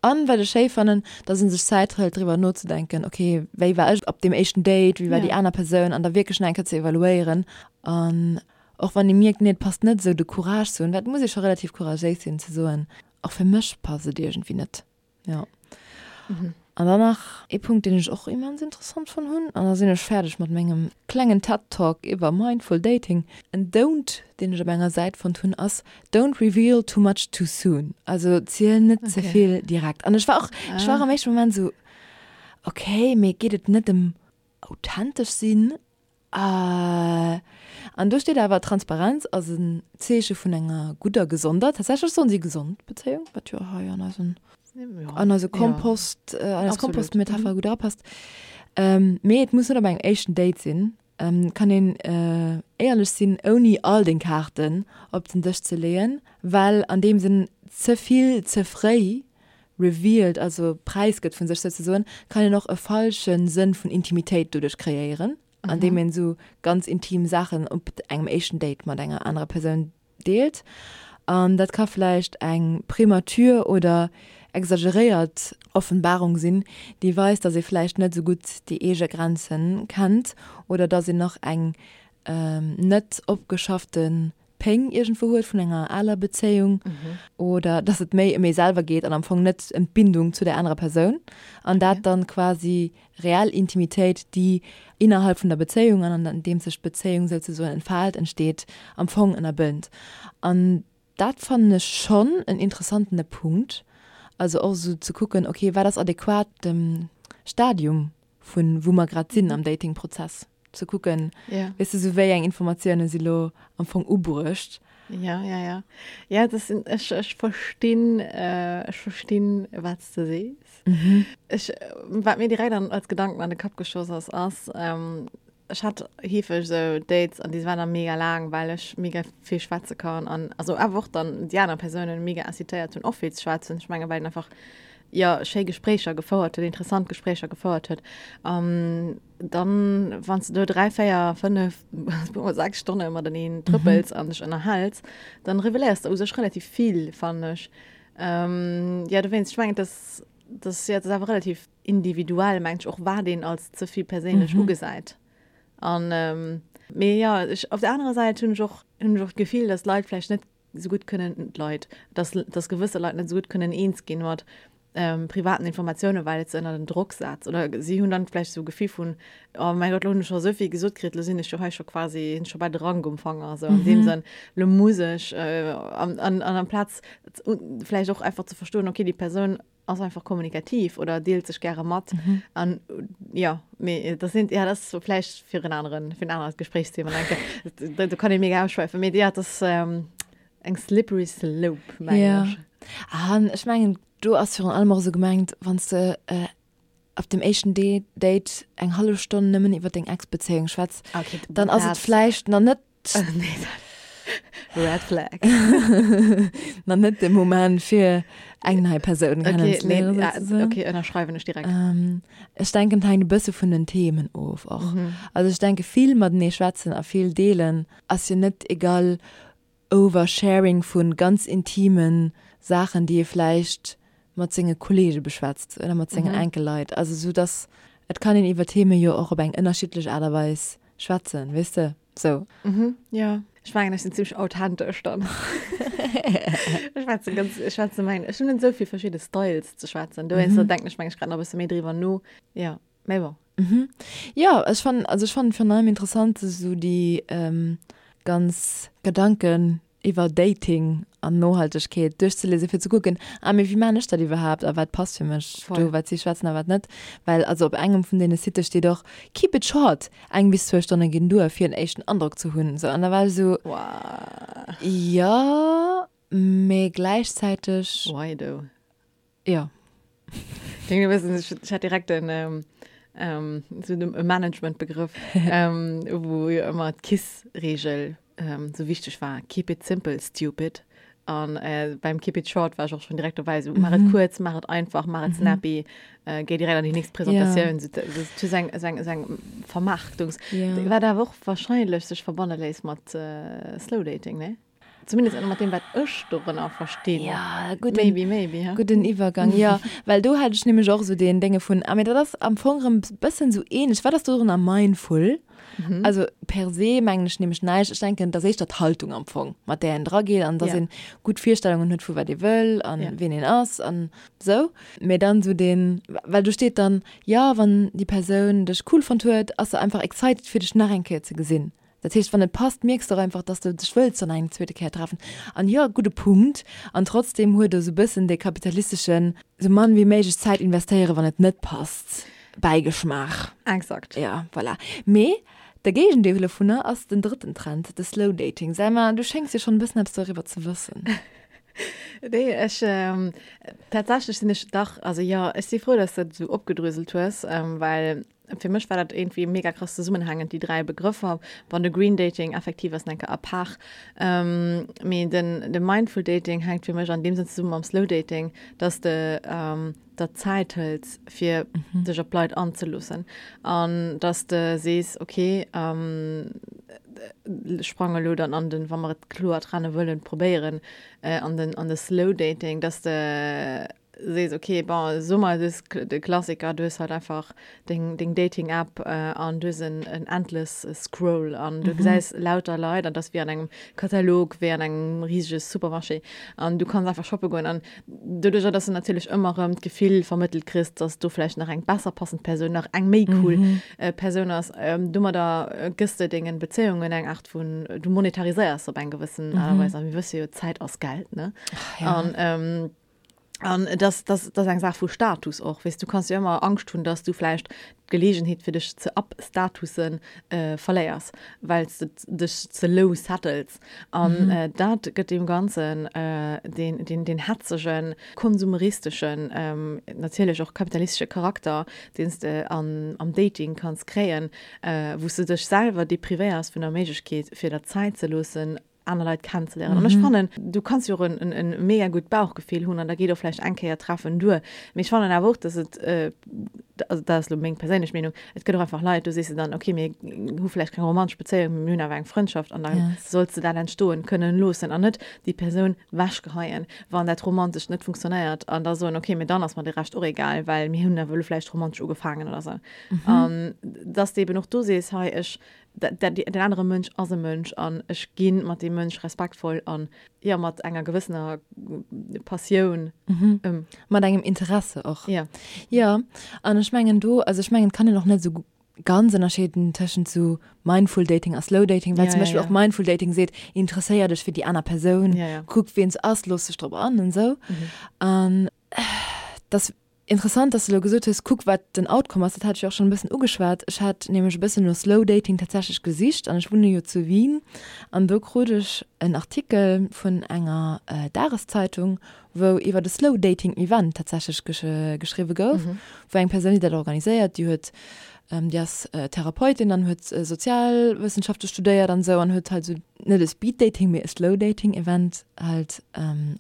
An wat ech schéi fannen, dass ee sech Zäit hëlt driwwer nozedenken, okay, wéi war ech op deem éischten Date, wéi war déi aner Persoun an da wierklech nach eng Kéier ze evaluéieren an och wann ee mierkt, nee, et passt net esou, de Courage ze hunn, well et muss ee scho relativ couragéis sinn ze soen, och fir mech passt et iergendwéi net. Jo. An dann nach ee Punkt, deen ech och immens interessant fonnt hunn, an da sinn ech fäerdeg mat mengem klengen TED Talk iwwer Mindful Dating. En Don't, deen ech op enger Säit fonnt hunn, ass Don't reveal too much too soon. Also ziel net ze vill direkt. An ech war och, ech war am éischte Moment esou, okay, mee geet et net ëm authentesch sinn? An do steet awer, Transparenz ass en Zeeche vun enger gudder, gesonder, tatsächlech soen si gesond Bezéiung, wat jo hei an eisen, an eise Kompost, an eis Kompostmetapher gutt erapasst. Mee et muss net op engem éischten Date sinn. Et kann een éierlech sinn, ouni all deng Kaarten op den Dësch ze leeën, well an deem Sënn ze vill ze fréi revealed, also präisgëtt vun sech souzesoen, kann een och e falsche Sënn vun Intimitéit doduerch kreéieren, andeem een esou ganz intim Saachen op engem éischten Date mat enger anerer Persoun deelt. An dat ka vläicht eng premature oder exageréiert Offenbarung sinn, déi weist, dass ee vläicht net esou gutt déi eege Grenze kennt oder dass een nach eng net opgeschaffte. Péng iergendwou huet vun enger aler Bezéiung oder dass et méi ëm ee selwer geet an am Fong net ëm d'Bindung zu der anerer Persoun an dat dann quasi reell Intimitéit, déi innerhalb vun der Bezéiung an an deem sech d'Bezéiung souzesoen entfaalt, entsteet, am Fong ënnerbënnt. An dat fannen ech schonn en interessantene Punkt, also och esou ze kucken, okay, wat ass adequat dem Stadium vun wou mer grad sinn am Datingprozess, ze kucken, Ja. weess de, sou wéi eng Informatioune si lo am Fong ubruecht. Ja, ja, ja. Ja, dat sinn, ech, ech verstinn, ech verstinn, wat s de sees. Ech, wat mir direkt an, als Gedanken an de Kapp geschoss ass, ass, ech hat heefeg esou Dates an déi waren da mega laang, well ech mega vill schwätze kann an also awer och dann déi aner Persounen mega incitéiert hunn och vill ze schwätzen. Ech menge well een einfach jo schéi Gespréicher gefouert huet, interessant Gespréicher gefouert huet. An dann wann s de do 3, 4, 5, puermol 6 Stonne mateneen trëppels an dech ënnerhäls, dann reveléiers de u sech relativ vill fannen ech. Jo dowéinst, ech mengen et ass, et ass jo et ass awer relativ individuell mengt ech och wat een als ze vill perséinlech mhm. ugesäit. An ähm, mee ja ech, op der anerer Säit hunn ech och hunn ech och d'Gefill, dass Leit vläicht net sou gutt kënnen d'Leit, dass dass gewësse Leit net sou gutt kënnen eens ginn mat ähm, privaten Informatiounen, well et se ënner den Drock setzt. Oder si hunn dann vläicht sou Gefill vun oh mäi Gott, lo hunn ech scho souvill gesot kritt, lo sinn ech jo hei scho quasi hunn ech scho bal de Rank um Fanger, sou an deem mhm. Sënn, lo muss ech äh, an, an, an amplaz vläicht och einfach ze verstoen, okay, déi Persoun ass einfach kommunikativ oder deelt sech gäre mat mhm. an ja mee das sind ja das so vläicht fir en aneren fir en anert Gesprächsthema denke da, da kann ich mega ausschweifen mee ja das ähm, eng slippery slope meng ja. ech. An ech mengen du ass virun allem och sou gemengt wann s de äh, op dem éischten Date eng hallef Stonn nëmmen iwwer deng Ex-Bezéiung schwätz, okay, dann ass et vläicht nach net Nee, Red Flag. Nach net de Moment fir eng nei Persoun okay, kennenzeléieren. Nee, ja, okay, ënnerschreiwen ech direkt. Ähm, ech denken, et hänkt e bësse vun den Themen of och. Mhm. Also ech denke vill matenee schwätzen a vill deelen ass jo net egal Oversharing vu ganz intime Saachen, déi ee vläicht mat senge Kollege beschwätzt oder mat sengen enke Leit. Also sou dass et kann een iwwer Theme jo och op eng ënnerschiddlech Aart a Weis schwätzen, weess de, sou. Mhm, jo. Ech mengen, ech sinn zimmlech authentesch dann. Ech schwätze ganz, ech schwätze mengen, ech hunn net esou vill verschidde Styles ze schwätzen. Dowéinster denken ech mengen ech grad nach e bësse méi driwwer no. Jo, mee bon. Mhm. Jo, ech fannen, also ech fannen virun allem interessant esou déi ganz Gedanken iwwer Dating an Nohaltegkeet duerchzelesen, fir ze kucken, ah mee wéi maan ech dat iwwerhaapt a wat passt fir mech do, wat si schwätzen a wat net. Well also op engem vun deene Sitte steet och, keep it short, eng bis zwou Stonne ginn duer fir en éischten Androck ze hunn. Sou an da war ech esou, jo, mee gläichzäiteg. Why though? Jo. Klingt e bëssen, ech, ech hat direkt en, ähm, ähm, so e Managementbegrëff, ähm, wou jo ëmmer d'KISS-Regel ähm, sou wichteg war, Keep it simple, stupid. An äh, beim Keep it short war ech och schon direkt dobäi, sou maach et kuerz, maach et einfach, maach et snappy, äh, géi direkt an déi nächst Presentatioun. Ja. Sou, sou, sou eng, sou eng, sou eng Vermarktungs. Ja. Wat awer och wahrscheinlech sech verbanne léisst mat äh, Slow Dating, ne? Zumindest mat deem, wat ech dorënner verstinn. Ja, gudden, maybe, maybe, ha? Gudden Iwwergang, ja. Well do hat ech nämlech och esou deen Dénge vun, ah, mee dat ass am Fong erëm e bëssen esou ähnlech. Wat ass dorënner mindful? Mhm. Also per se mengen ech nämlech näischt. Ech denken, et ass éischter d'Haltung am Fong, mat där een drageet an dass Ja. een gutt Virstellungen huet vu wat ee wëll an Ja. wien een ass an esou. Mee dann esou deen, well do steet dann, jo, wann déi Persoun dech cool fonnt huet, ass se einfach excited fir dech nach eng Kéier ze gesinn. Dat heescht, wann et passt, mierks de och einfach, dass de dech wëlls dann eng zweete Kéier treffen. An jo, gudde Punkt. An trotzdem huet e sou bëssen dee kapitalisteschen, sou mann wéi méiglech Zäit investéieren, wann et net passt, Bäigeschmaach. Exakt. Ja, voilà. Mee de Géigendeel dovunner ass den drëtten Trend, de Slow Dating. Selma, du schéngs jo schonn e bëssen eppes doriwwer ze wëssen. Nee, ech, tatsächlech sinn ech dach, also jo, ech si frou, dass de dat esou opgedröselt hues, well Fir mech war dat iergendwéi mega krass zesummenhängend, déi 3 Begrëffer. Bon, de Green Dating effektiv ass enke à part, mee den de Mindful Dating hänkt fir mech an deem Sënn zesumme mam Slow Dating, dass de der Zäit hëls fir dech op d'Leit anzeloossen an dass de sees, okay, ech sprange elo dann an den, wa mer et kloer trenne wëllen, probéieren, an den an de Slow Dating, dass de. sees, okay, bon, so mer, du hues de Klassiker, du hues halt einfach deng, deng Dating-App an du hues en, en endless Scroll an du gesäis lauter Leit an dat ass wéi an engem Katalog, wéi an engem risege Supermarché an du kanns einfach shoppe goen an doduercher, dass du natierlech ëmmer erëm d'Gefill vermëttelt kriss, dass do vläicht nach eng besser passend Persoun, nach eng méi cool Persoun ass, domadder gëss de dengen Bezéiungen eng Aart vun, du monetariséiers se op eng gewëssen Aart a Weis a mir wësse jo, Zäit ass Geld, ne? An An dass, dass, dass eng Saach vu Status och, weess, du kanns jo ëmmer Angscht hunn, dass du vläicht d'Geleegenheet fir dech ze upstatussen verléiers, well s de dech ze low settles. An dat gëtt deem Ganzen deen, deen, deen hetzegen, konsumeristeschen, natierlech och kapitalistesche Charakter, deen s de an, am Dating kanns kréien, wou s de dech selwer deprivéiers vun der Méiglechkeet, fir der Zäit ze loossen, aner Leit kennenzeléieren. An ech fannen, du kanns jo och en, en, en mega gutt Bauchgefill hunn an da geet och vläicht eng Kéier treffen duer. Mee ech fannen awer och, dass et, also dat ass elo meng perséinlech Meenung, et gëtt och einfach Leit, do sees de dann, okay, mir hu vläicht keng romantesch Bezéiung, mee mir hunn awer eng Frëndschaft an da solls de dat entstoen kënnen loossen an net déi Persoun wechgeheien, wann dat Romantescht net funktionéiert an da soen, okay, mee dann ass mer de Rescht och egal, well mir hunn awer elo vläicht romantesch ugefaangen oder sou. An dass de eben och do sees, hei, ech den anere Mënsch ass e Mënsch an ech gi mat deem Mënsch respektvoll an, jo, mat enger gewëssener Passioun ëm. Mat engem Interesse och. Jo. Jo, an ech mengen do, also ech mengen, et kann een och net esou ganz ënnerscheeden tëschent esou Mindful Dating a Slow Dating, well zum Beispill och Mindful Dating seet, interesséier dech fir déi aner Persoun, kuck wien se ass, looss dech drop an an esou. An dass Interessant, dass de elo gesot hues, kuck wat den Outcome ass. Dat hat ech jo och schonn e bëssen ugeschwat. Ech hat nämlech e bëssen no Slow Dating tatsächlech gesicht an ech wunne jo zu Wien an do krut ech en Artikel vun enger Dageszeitung, wou iwwert e Slow Dating Event tatsächlech geschriwwe gouf, wou eng Persoun, déi dat organiséiert, déi huet, déi ass Therapeutin an huet Sozialwëssenschafte studéiert an esou an huet halt esou net e Speed Dating, mee e Slow Dating Event halt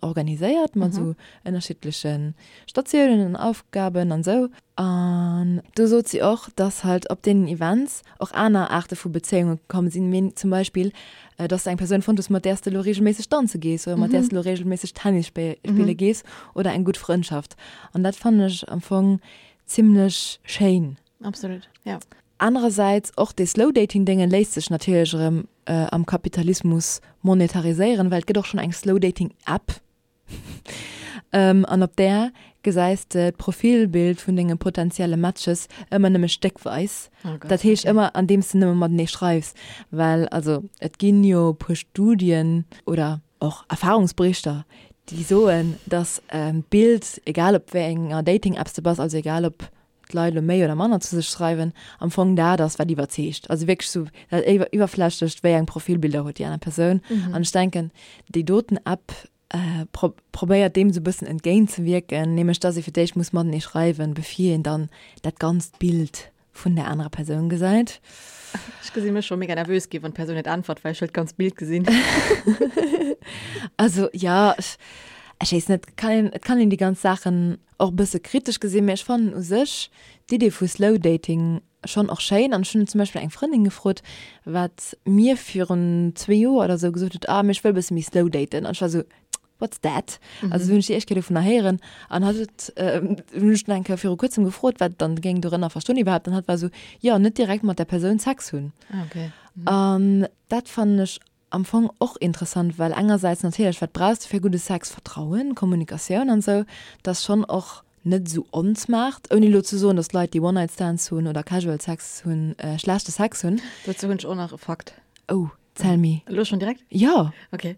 organiséiert mat esou ënnerschiddleche Statiounen an Aufgaben an sou. An do sot si och, dass halt op deenen Events och aner Aarte vu Bezéiunge komm sinn, mee zum Beispill, dass de eng Persoun fonnt hues, mat där s de elo reegelméisseg danze gees oder mat där s de elo reegelméisseg Tennis spille gees oder eng gutt Frëndschaft. An dat fannen ech am Fong zimmlech schéin. Absolut, ja. Anerersäits, och dee Slow-Dating-Dénge léisst sech natierlech erëm am Kapitalismus monetariséieren, well et gëtt och schonn eng Slow-Dating-App. An op där gesäis de d'Profilbild vun denge potentielle Matches ëmmer nëmme stéckweis. Dat heescht ëmmer andeems de nëmme matenee schreifs. Well also et ginn jo e puer Studien oder och Erfahrungsberichter, déi soen, datt d'Bild, egal op wéi enger Dating-Apps de bass, also egal op d'Leit elo méi oder manner zu sech schreiwen, am Fong dat ass, wat iwwerzeegt. Also wierklech sou dat Iwwerflächlecht, wéi eng Profilbilder huet déi aner Persoun. An ech denken, déi doten App probéiert deem sou e bëssen entgéintzewierken, nämlech dass ee fir d'éischt muss matenee schreiwen, bevir een dann dat ganzt Bild vun där anerer Persoun gesäit. Ech gesi mech scho mega nervös ginn, wann d'Persoun net äntwert, well ech wëll d'ganzt Bild gesinn. Also jo, ech weess net, kann een, et kann een déi ganz Saachen och e bësse kritesch gesinn, mee ech fannen u sech d'Idee vu Slow Dating schonn och schéin. An ech hunn zum Beispill eng Frëndin gefrot, wat mir virun zwee Joer oder esou gesot huet, ah mee ech wëll e bësse méi slow daten. An ech war esou, what's that? Also hunn ech déi éischt Kéier dovunner héieren an hatt huet, hunn ech dann eng Kéier viru kuerzem gefrot, wat dann géing dorënner verstoen iwwerhaapt an hatt war esou, jo net direkt mat der Persoun Sex hunn. Ah okay. An dat fannen ech Am Fong och interessant, well engersäits natierlech, wat brauchs de fir gudde Sex? Vertrauen, Kommunikatioun an esou. Dat ass schonn och net esou onsmart, ouni elo ze soen, datt Leit, déi One-Night-Stands hunn oder Casual Sex hunn, schlechte Sex hunn. Dozou hunn ech och nach e Fakt. Oh, tell me. Elo schonn direkt? Jo! Ok,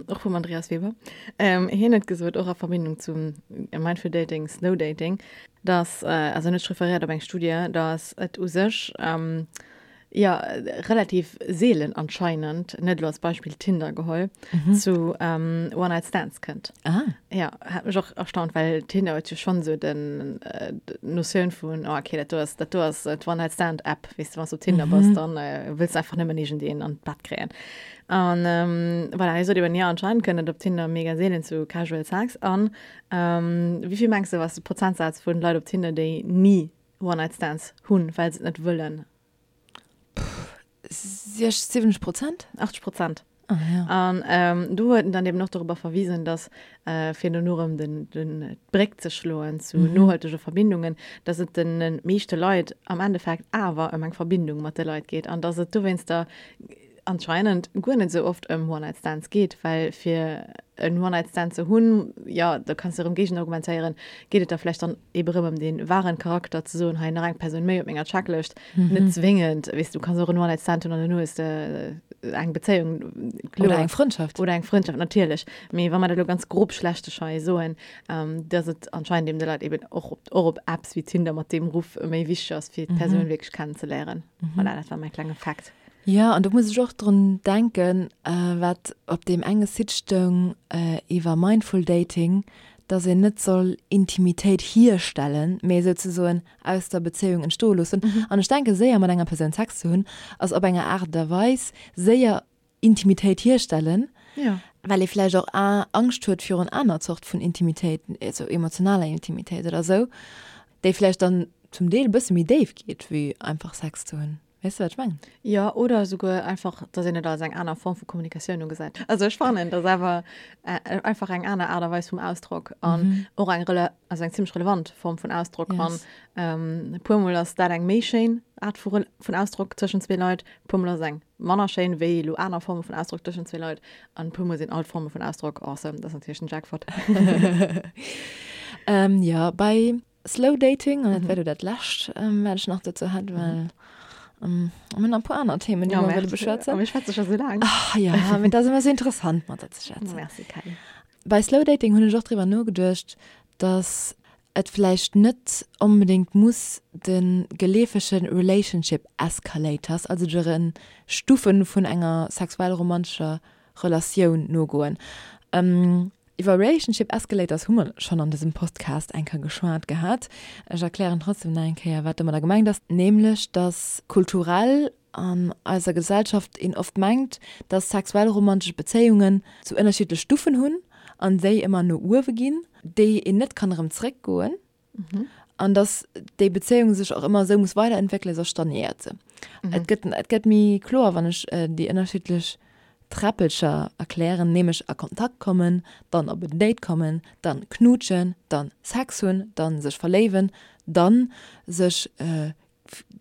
och vum Andreas Weber. Hien huet gesot, och a Verbindung zum Mindful Dating, Slow Dating, datt, also hien huet sech referéiert op eng Studie, datt et u sech, Jo, relativ seelen anscheinend, net elo als Beispill Tinder geholl, zu One-Night-Stands kënnt. Ah. Jo, hat mech och erstaunt, well Tinder huet jo schonn esou den, d'Notioun vun, oh okay, dat do ass, dat do ass d'One-Night-Stand-App, weess de, wann s de op Tinder bass, dann wëlls de einfach nëmmen iergendeen an d'Bett kréien. An voilà, hie sot eben, jo, anscheinend kënnt et op Tinder mega seelen zu Casual Sex. An wéi vill mengs de, ass de Prozentsaz vun Leit op Tinder, déi ni One-Night-Stands hunn, well se et net wëllen? 60, 70 Prozent? 80 Prozent. Ah, ja. An ähm, do huet en dann eben och dorobber verwisen, dass äh, fir dono erëm den, den, d'Bréck ze schloen zu mhm. nohaltege Verbindungen, dass et den meeschte Leit am Endeffekt awer ëm eng Verbindung mat de Leit geet an dass et dowéinster anscheinend guer net sou oft ëm One-Night-Stands geet, well fir en One-Night-Stand ze hunn, jo, da kanns de erëm géigenargumentéieren, geet et da vläicht dann ebe rëm ëm dee wahren Charakter, ze soen, hei nach eng Persoun méi op menger Checklëscht, net zwéngend, weess du, kanns och en One-Night-Stand hunn an duerno hues de eng Bezéiung, kloer. Oder eng Frëndschaft. Oder eng Frëndschaft, natierlech. Mee wa mer dat elo ganz grob schlechtegsch hei soen, dass et anscheinend eben de Leit eben och op, och op Apps wéi Tinder mat deem Ruff méi wichteg ass, fir d'Persoun wierklech kennenzeléieren. Voilà, dat war mäi klenge Fact. Jo, an do muss ech och drun denken, wat op deem enge Site stoung iwwer Mindful Dating, dass een net soll Intimitéit hierstellen, mee souzesoen aus der Bezéiung entstoe loossen. An ech denken, séier mat enger Persoun Sex ze hunn, ass op enger Aart a Weis séier Intimitéit hierstellen, well ee vläicht och Angscht huet virun aner Zort vun Intimitéit, also emotionaler Intimitéit oder esou, déi vläicht dann zum Deel e bësse méi déif geet, wéi einfach Sex ze hunn. Weess de, wat ech mengen? Jo, oder esouguer einfach, dass een et als eng aner Form vu Kommunikatioun ugesäit. Also ech fannen, dass awer einfach eng aner Aart a Weis vum Ausdrock an och eng rele-, also eng zimmlech relevant Form vun Ausdrock. An e puermol ass dat eng méi schéin Aart vu Rel-, vun Ausdrock tëschent zwee Leit, e puermol ass et eng manner schéin wéi elo aner Forme vun Ausdrock tëschent zwee Leit an e puermol sinn all d'Forme vun Ausdrock awesome. Dat ass natierlech den Jackpot. Jo, bei Slow Dating, an dat wär do dat lescht, wat ech nach dozou hätt, well mir hunn nach e puer aner Themen, déi mer wëlle beschwätzen. A mir schwätze scho sou laang. Ach jo, mee dat ass ëmmer sou interessant, mat der ze schwätzen. Merci, Kelly. Bei Slow Dating hunn ech och driwwer nogeduecht, dass et vläicht net onbedéngt muss de geleefege Relationship Escalators, also de Stufe vun enger sexuell-romantescher Relatioun nogoen. Iwwer Relationship Escalators hu mer schonn an dësem Podcast eng Kéier geschwat gehat. Ech erklären trotzdem nach eng Kéier, wat domadder gemengt ass, nämlech dass kulturell an eiser Gesellschaft een oft mengt, dass sexuell romantesch Bezéiungen sou ënnerschiddlech Stufen hunn an déi ëmmer no uewe ginn, déi een net kann erëm zréckgoen. An dass déi Bezéiung sech och ëmmer esou muss weiderentwéckelen, soss stagnéiert se. Et gëtt, et gëtt méi kloer, wann ech déi ënnerschiddlech Träppelcher erklären, nämlech a Kontakt kommen, dann op en Date kommen, dann knuutschen, dann Sex hunn, dann sech verléiwen, dann sech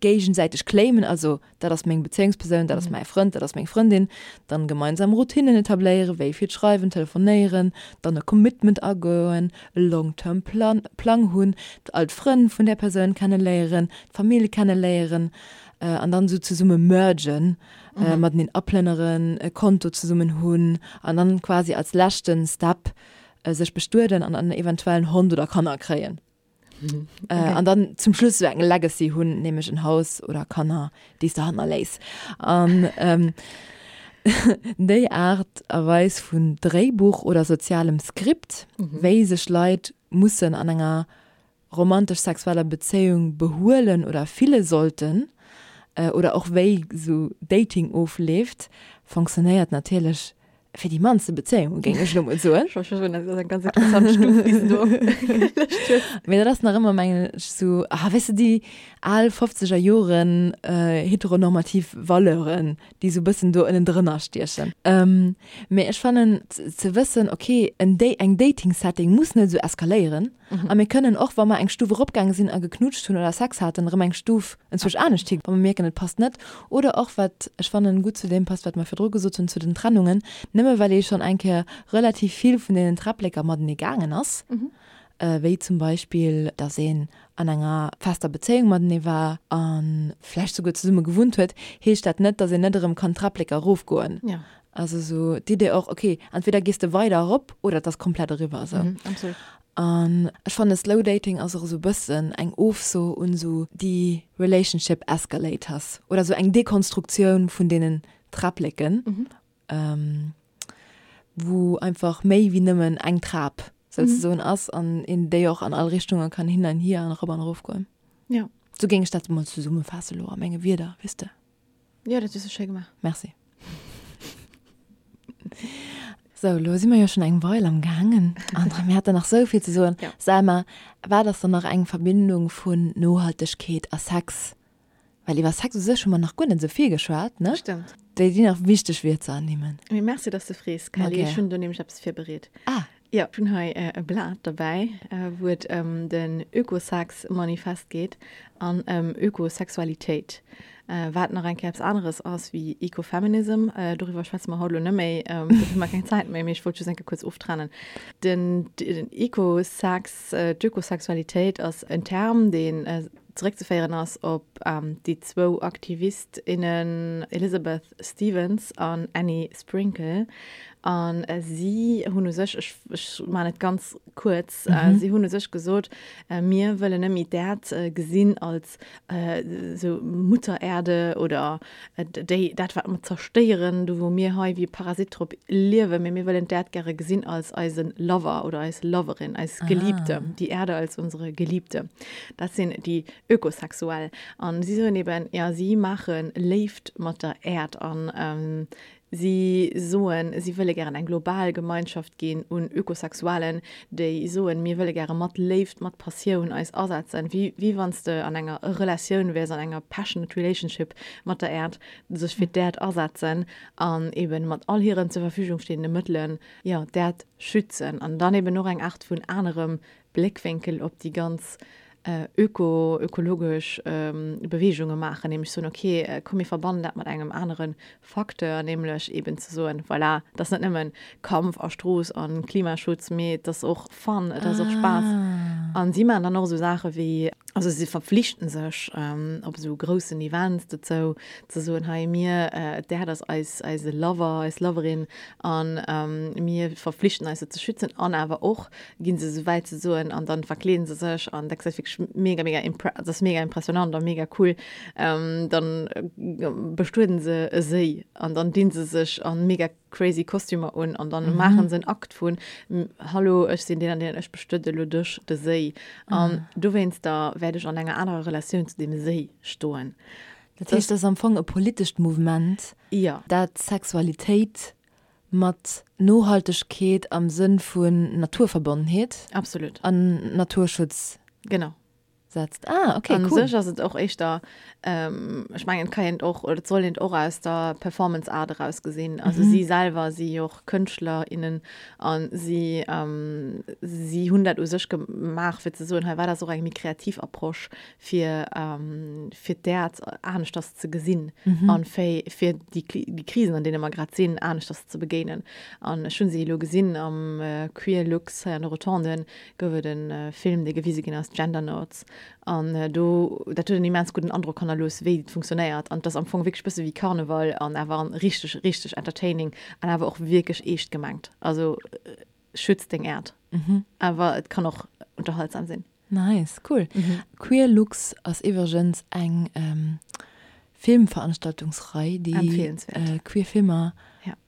géigesäiteg claimen, also dat ass meng Bezéiungspersoun, dat ass mäi Frënd, dat ass meng Frëndin, dann gemeinsam Routinnen etabléieren, wéi vill schreiwen, telefonéieren, dann e Commitment agoen, e long term plan Plang hunn, all d'Frënn vun där Persoun kenneléieren, d'Famill kenneléieren an dann esou zesumme mergen, mateneen aplënneren, e Konto zesummen hunn an dann quasi als leschten Step sech bestueden an dann eventuell en Hond oder Kanner kréien. Mhm. Äh, okay. Äh, an dann zum Schluss so eng Legacy hunn, nämlech en Haus oder Kanner, déi s de hannerléiss. An ähm, déi Aart a Weis vun Dréibuch oder sozialem Skript, mhm. wéi sech Leit mussen an enger romantesch-sexueller Bezéiung behuelen oder fille sollten, äh, oder och wéi sou Dating ofleeft, fonctionnéiert natierlech Fir déi mannste Bezéiunge géing ech elo mol soen. Ech wollt scho soen, dat ass eng ganz interessant Stuf, déi s de do opgelëscht hues. Mee dat ass nach ëmmer, mengen ech, sou, ah, weess de, déi al fofzeger Joren heteronormativ Valeuren, déi sou e bëssen do ënnendrënner stiechen. Mee ech fannen, ze wëssen, okay, en Da-, eng Dating-Setting muss net esou eskaléieren. A mir kënnen och, wa mer eng Stuf eropgaange sinn a geknutscht hunn oder Sex haten, erëm eng Stuf enzwousch anescht hi, wa mer mierken, et passt net. Oder och, wat ech fannen, gutt zu deem passt, wat mer virdru gesot hunn zu den Trennungen, nëmme well ee schonn eng Kéier relativ vill vun deenen Träppleker matenee gaangen ass, wéi zum Beispill, datt een an enger fester Bezéiung matenee war a vläicht souguer zesumme gewunnt huet, heescht dat net, datt een net erëm kann d'Träppleker erofgoen. Also sou d'Idee och, ok, entweder gees de weider erop oder et ass komplett eriwwer esou. Mhm, absolut. An ech fanne Slow Dating ass och esou bëssen eng Ofso un esou déi Relationship Escalators oder esou eng Dekonstruktioun vun deenen Träppleken, wou einfach méi wéi nëmmen eng Trap souzesoen ass an een déi och an all Richtunge kann hin an hier an erop an erof goen. Jo. Sou géing ech dat emol zesummefaasse lo a menge Wierder, weess de. Jo, dat hues du schéi gemaach. Merci. Sou, lo si mer jo schonn eng Meil am gaangen an mir haten nach sou vill ze soen. Ja. Selma, wat ass dann nach eng Verbindung vun Nohaltegkeet a Sex? Well iwwer Sex u sech hu mer nach guer net sou vill geschwat, ne? Stëmmt. Déi déi nach wichteg wier ze ernimmen. Mee merci, dass de frees, Kelly. Ech hunn do nämlech eppes virbereet. Ah. Jo, ech hunn hei e Blat derbäi, wou et ëm den Ökosex-Manifest geet an ëm Ökosexualitéit, wat nach eng Kéier eppes aneres ass wéi Ecofeminism. Doriwwer schwätze mer haut elo net méi, dofir hu mer keng Zäit méi, mee ech wollt just eng Kéier kuerz oftrennen. Den Ecosex, d'Ökosexualitéit ass en Term, deen zeréckzeféieren ass op déi zwou Aktivist, innen Elizabeth Stevens an Annie Sprinkle. A si hunn u sech, ech, ech maachen et ganz kuerz, si hunn u sech gesot, mir wëllen net méi d'Äerd gesinn als esou Mutter Erde oder déi, dat wat mer zerstéieren, do wou mir hei wéi e Parasit drop liewen, mee mir wëllen d'Äerd gäre gesinn als eise Lover oder eis Loverin, eis Geliebte, die Erde als unsere Geliebte. Dat sinn déi Ökosexuell. An si soen eben, jo, si maache Léift mat der Äerd an si soen, si wëlle gären eng global Gemeinschaft ginn un Ökosexuellen, déi soen, mir wëlle gäre mat Léift, mat Passioun eis asetzen, wéi, wéi wann s de an enger Relatioun wäers, an enger passionate relationship mat der Äerd, sech fir d'Äerd asetzen an eben mat all hiren zur Verfügung stehende Mëttelen, jo, d'Äerd schützen an dann eben och eng Aart vun anerem Bléckwénkel op déi ganz öko, ökologesch Beweegunge maachen, nämlech soen, okay, komm mir verbannen dat mat engem anere Facteur, nämlech eben ze soen, voilà, et ass net nëmmen Kampf a Strooss a Klimaschutz, mee et ass och Fun, et ass och Spaass. A si maachen dann och esou Saache wéi, also si verpflichten sech op esou groussen Events dozou, ze soen, hei mir, d'Äerd ass eis, eise Lover, eis Loverin a mir verpflichten eis se ze schützen an awer och, ginn se esou wäit ze soen an dann verkleeden se sech an dat gesäit wierklech mega mega impre dat ass mega impressionant a mega cool ähm, dann bestueden se e Séi an dann dinn se sech an mega crazy Kostümer un an dann mhm. maachen se en Akt vun Hallo ech sinn deen an deen ech bestuede lo dech de Séi an mhm. dowéinster wäert ech an enger anerer Relatioun zu deem Séi stoen. Dat heescht, dat ass am Fong e politescht Mouvement, ja. dat Sexualitéit Mat Nohaltegkeet am Sënn vun Naturverbonnenheet. Absolut. An Naturschutz. Genau. Setzt. Ah, okay, cool. An sech ass et och éischter, ech mengen, et ka een et och, oder et soll een et och aus der Performance Art eraus gesinn. Also si selwer si jo och Kënschtler, innen a si, si hunn dat u sech gemaach, fir ze soen, hei war dat och eng méi kreativ Approche, fir fir d'Äerd aneschters ze gesinn mhm. an fir fir déi déi Krisen an deene mer grad sinn aneschters ze begéinen. An ech hunn se elo gesinn am äh, Queer Lux hei an de Rotonden gouf et en äh, Film, dee gewise ginn ass, Gender Notes. An äh, do dat huet en immens gudden Androck hannerlooss, wéi et funktionéiert. An et ass am Fong wierklech bësse wéi Karneval an awer an richteg richteg entertaining an awer och wierklech eescht gemengt. Also äh, schütz deng Äerd. Mhm. Awer et kann och unterhaltsam sinn. Nice, cool. Queer Lux ass iwwregens eng Filmveranstaltungsrei, déi queer Filmer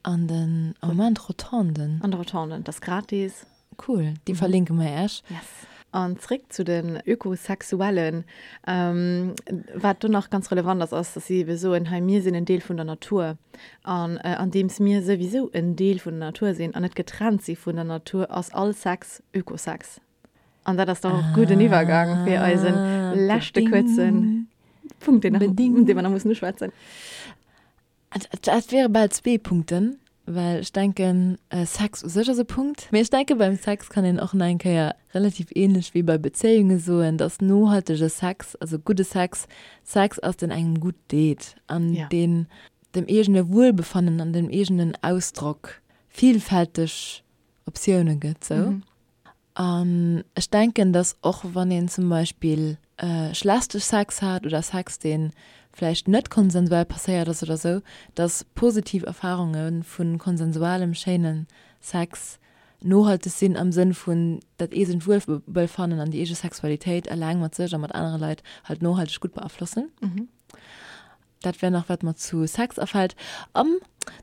an den am Moment Rotonden. An de Rotonden, dat ass gratis. Cool, déi verlinke mer Iech. Yes. An zréck zu den Ökosexuellen. Wat do nach ganz relevant ass, ass, dass si ebe soen, hei mir sinn en Deel vun der Natur. An andeems mir souwisou en Deel vun der Natur sinn an net getrennt si vun der Natur, ass all Sex Ökosex. An dat ass dann och gudden Iwwergang fir eisen ah, leschte kuerzen Punkt, den, den wir nach mussen uschwätzen. Dat wäre bal zwee Punkten, well ech denken äh, Sex u sech ass e Punkt. Mee ech denke beim Sex kann een och nach eng Kéier relativ ähnlech wéi bei Bezéiunge soen, dass nohaltege Sex, also gudde Sex, Sex ass, deen engem gutt deet an ja. deen dem eegene Wuelbefannen an dem eegenen Ausdrock vielfälteg Optioune gëtt. Sou. Mhm. An ech denken, dass och wann een zum Beispill schlechte Sex hat oder Sex, dee vläicht net konsensuell passéiert ass oder sou, dass positiv Erfarunge vu konsensualem, schéine Sex nohalteg sinn am Sënn vun dat eegent Wuelbefannen an déi eege Sexualitéit eleng mat sech a mat anere Leit halt nohalteg gutt beaflossen. Dat wär nach wat mer zu Sex afält. An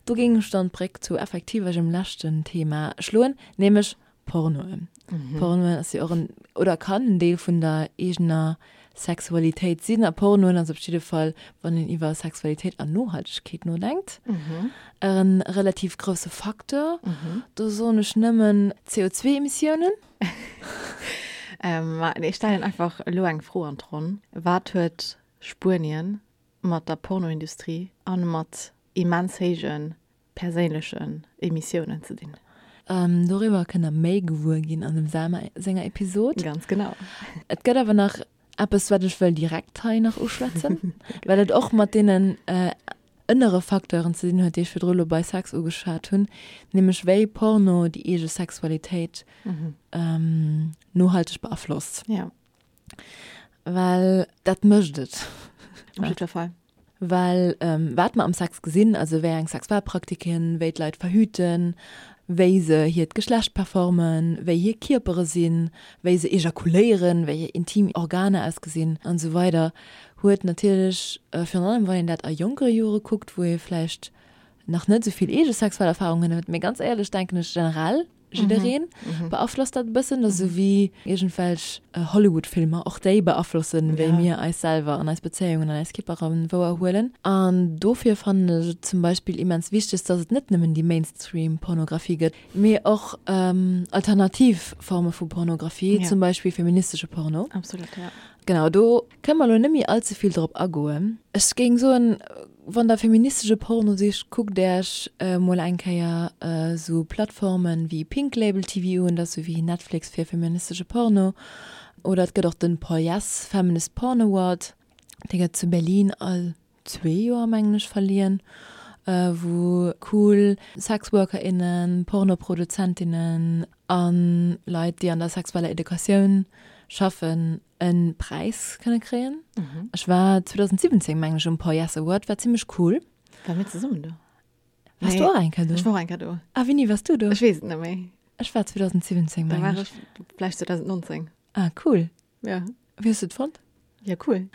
do géing ech dann d'Bréck zu effektiv eisem leschten Thema schloen, nämlech Pornoen. Pornoen ass jo och en, oder kann en Deel vun der eegener Sexualitéit sinn. A Pornoen ass op jidde Fall, wann een iwwer Sexualitéit an Nohaltegkeet nodenkt, e relativ grousse Facteur. Do soen ech nëmmen CO2-Emissiounen. Ma ech stellen einfach elo eng Fro an d'Ronn, Wat huet Spuenien mat der Pornoindustrie an mat. immens héije perséinlechen Emissiounen ze dinn. Doriwwer kënnt der méi gewuer ginn an dem Selma senger Episod. Ganz genau. Et gëtt awer nach eppes, wat ech wëll direkt hei nach uschwätzen, well et och mat deenen ënnere Facteuren ze dinn huet, déi ech virdru lo bei Sex ugeschwat hunn, nämlech wéi Porno déi eege Sexualitéit nohalteg beaflosst. Ja. Well dat mécht et. Op jiddwer Fall. Well wat mer am Sex gesinn, also wéi eng Sexualpraktiken, wéi d'Leit verhüten, wéi se hiert Geschlecht performen, wéi hir Kierpere sinn, wéi se ejakuléieren, wéi hir intim Organer ausgesinn an esou weider, huet natierlech, virun allem wann een dat a jonkere Jore kuckt, wou ee vläicht nach net esou vill eege sexuell Erfarungen huet, mee ganz éierlech denken ech generell, jiddereen beaflosst dat e bëssen, dat ass esou wéi iergendwelch Hollywood-Filmer, och déi beaflossen, wéi mir eis selwer an eis Bezéiungen an eis Kierpere wouerhuelen. An dofir fannen ech et zum Beispill immens wichteg, dass et net nëmmen déi Mainstream-Pornografie gëtt, mee och alternativ Forme vu Pornografie, zum Beispill feministesche Porno. Absolut, ja. Genau, do kënne mer elo net méi all ze vill drop agoen. Ech géing soen, wann der feministesche Porno sicht, kuckt Äech mol eng Kéier esou Plattformen wéi Pink Label TV un, dat ass esou wéi Netflix fir feministesche Porno. Oder et gëtt och den POYES, Feminist Porn Award, dee gëtt zu Berlin all zwee Joer mengen ech verliehen, wou cool Sexworkerinnen, Pornoproduzentinnen a Leit déi an der sexueller Educatioun schaffen e Präis kënne kréien. Ech war 2017 mengen ech um Poies Award, war zimmlech cool. Ware mir zesummen do? Wars du och eng Kéier do? Ech war och eng Kéier do. A wéini wars du do? Ech weess et net méi. Ech war 2017 mengen ech. Da war ech vläicht 2019. Ah cool. Ja. Wéi hues du et fonnt? Ja, cool.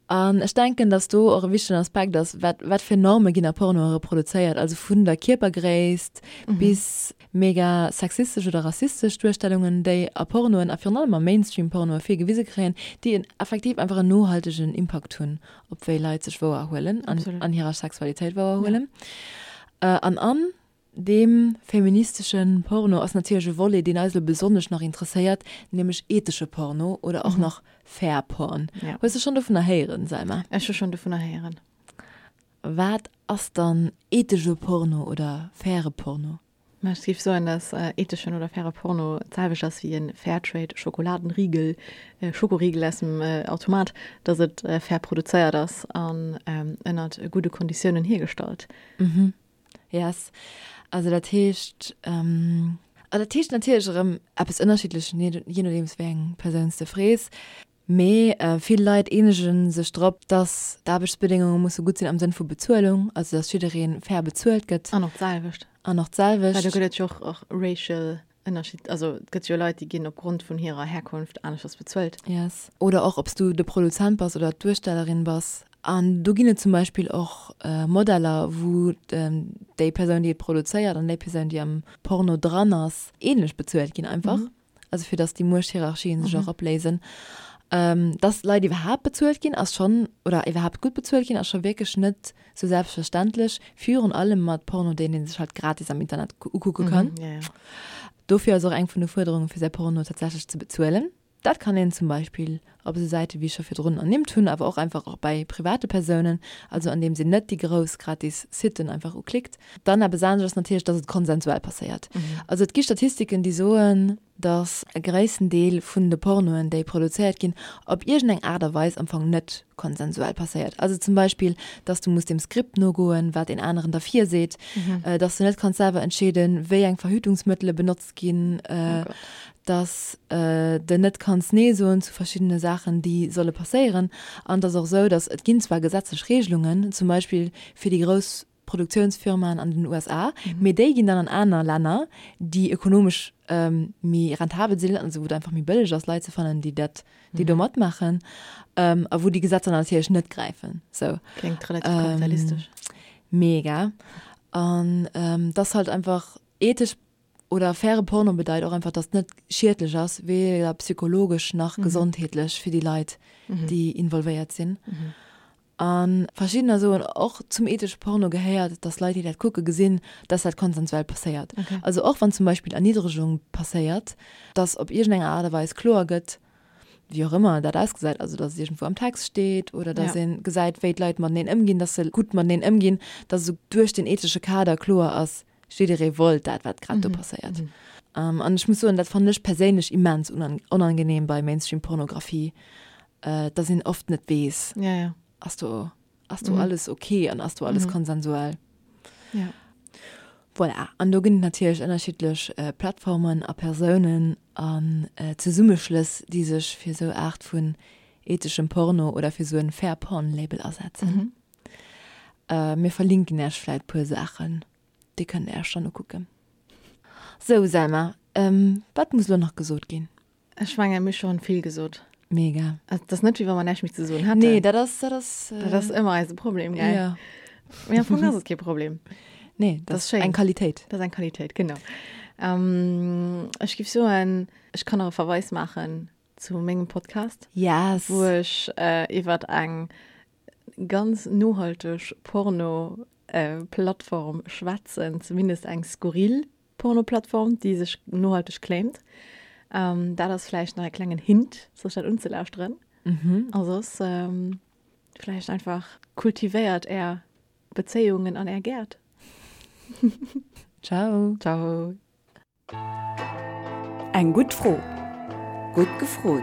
An ech denken, dass do och e wichtegen Aspekt ass, wat, wat fir Norme ginn a Pornoe reproduzéiert, also vun der Kierpergréisst bis mega sexistesch oder rassistesch Duerstellungen, déi a Pornoen a virun allem a Mainstream-Pornoe vill gewise kréien, déi en effektiv einfach en nohaltegen Impakt hunn op wéi Leit sech wouerhuelen an an hirer Sexualitéit wouerhuelen. An an Deem feministesche Porno ass natierlech e Volet, deen eis elo besonnesch nach interesséiert, nämlech ethesche Porno oder och nach Fair Porn. Hues de schonn dovunner héieren, Selma? Ech hu schonn dovunner héieren. Wat ass dann ethesche Porno oder faire Porno? Ma ech géif soen, dass etheschen oder faire Porno d'selwecht ass wéi e Fairtrade Schokoladenriegel, Schokoriegel aus dem Automat, dass et fair produzéiert ass an ënnert gudde Konditiounen hiergestallt. Yes. Also dat heescht, an dat heescht natierlech erëm eppes ënnerschiddlech, jee nodeems wéi eng Persoun s de frees. Mee vill Leit eenege sech drop, dass d'Aarbechtsbedéngunge musse gutt sinn am Sënn vu Bezuelung, also dass jidderee fair bezuelt gëtt. An och d'selwecht. An och d'selwecht. Well do gëtt et jo och och racial Ënnerscheed, also et gëtt jo Leit, déi ginn opgrond vun hirer Herkunft aneschters bezuelt. Yes. Oder och ob s du de Produzent bass oder d'Duerstellerin bass. An do ginn et zum Beispill och Modeller, wou déi Persoun, déi et produzéiert an déi Persoun, déi am Porno dran ass, ähnlech bezuelt ginn einfach. Also fir datt déi Muechthierarchien sech och opléisen. Dass Leit iwwerhaapt bezuelt ginn, ass schonn, oder iwwerhaapt gutt bezuelt ginn, ass scho wierklech net sou selbstverständlech, virun allem mat Porno, deen ee sech halt gratis am Internet ukucke kann. Dofir ass och eng vun de Fuerderunge fir säi Porno tatsächlech ze bezuelen. Dat kann een zum Beispill op esou Säite wéi ech scho virdrun ernimmt hunn, awer och einfach och bei private Persounen, also andeems een net déi grouss gratis Siten einfach uklickt. Dann eppes anescht ass natierlech, dass et konsensuell passéiert. Also et gi Statistiken, déi soen, dass e gréissten Deel vun de Pornoen, déi produzéiert ginn, op iergendeng Aart a Weis am Fong net konsensuell passéiert. Also zum Beispill, dass du muss dem Skript nogoen, wat een aneren der virseet, dass du net kanns selwer entscheeden, wéi eng Verhütungsmëttele benotzt ginn, dass de net kanns Nee soen zu verschiddene Saachen, déi solle passéieren. An et ass och esou, dass et ginn zwar gesetzlech Regelungen, zum Beispill fir déi grouss Produktiounsfirmaen an den USA, mee déi ginn dann an aner Länner, déi ökonomesch méi rentabel sinn, also wou et einfach méi bëlleg ass, Leit ze fannen, déi dat, déi do matmaachen, a wou déi Gesetzer natierlech net gräifen. Sou. Kléngt relativ kapitalistesch. Mega. An et ass halt einfach ethesch oder faire Porno bedeit och einfach, dass et net schiedlech ass, weder psychologesch nach gesondheetlech fir déi Leit, déi involvéiert sinn. A verschiddener soen och, zum ethesche Porno gehéiert, dass Leit, déi dat kucke gesinn, dass dat konsensuell passéiert. Also och wann zum Beispill Erniddregung passéiert, dass op iergendeng Aart a Weis kloer gëtt. Wéi och ëmmer dat ausgesäit, also datt et iergendwou am Text steet oder datt ee gesäit, wéi d'Leit mateneen ëmginn, datt se gutt mateneen ëmginn, datt esou duerch den ethesche Kader kloer ass, jidderee wollt dat, wat grad do passéiert. An ech muss soen, dat fannen ech perséinlech immens onangenehm bei Mainstream-Pornografie, datt een oft net weess, ass do Ass do alles ok an ass do alles konsensuell? Ja. Voilà, an do ginn et natierlech ënnerschiddlech Plattformen a Persounen an Zesummeschlëss, déi sech fir esou Aart vun etheschem Porno oder fir esou en Fair Porn Label asetzen. Mir verlinken Äech vläit puer Saachen, déi kënnt Dir Äech dann ukucken. Sou Selma, wat muss elo nach gesot ginn? Ech mengen, mir hu schonn vill gesot. Mega. Also, dat ass net, wéi wa mer näischt méi ze soen hätten. Nee, dat ass, dat ass. Dat ass ëmmer eise Problem, gell? Ja. Mee am Fong ass et kee Problem. Nee, dat ass eng Qualitéit. Dat ass eng Qualitéit, genau. Ähm, ech géif soen, ech kann nach e Verweis maachen zu mengem Podcast. Yes. Wou ech äh, iwwer eng ganz nohalteg Porno-Plattform schwätzen, zumindest eng skurril Pornoplattform, déi sech nohalteg claimt. Ähm, dat ass vläicht nach e klengen Hint, sech dat unzelauschteren. Mhm. A soss ähm, vläicht einfach kultivéiert är Bezéiungen an är Gäert. Ciao. Ciao. Eng gutt Fro. Gutt gefrot.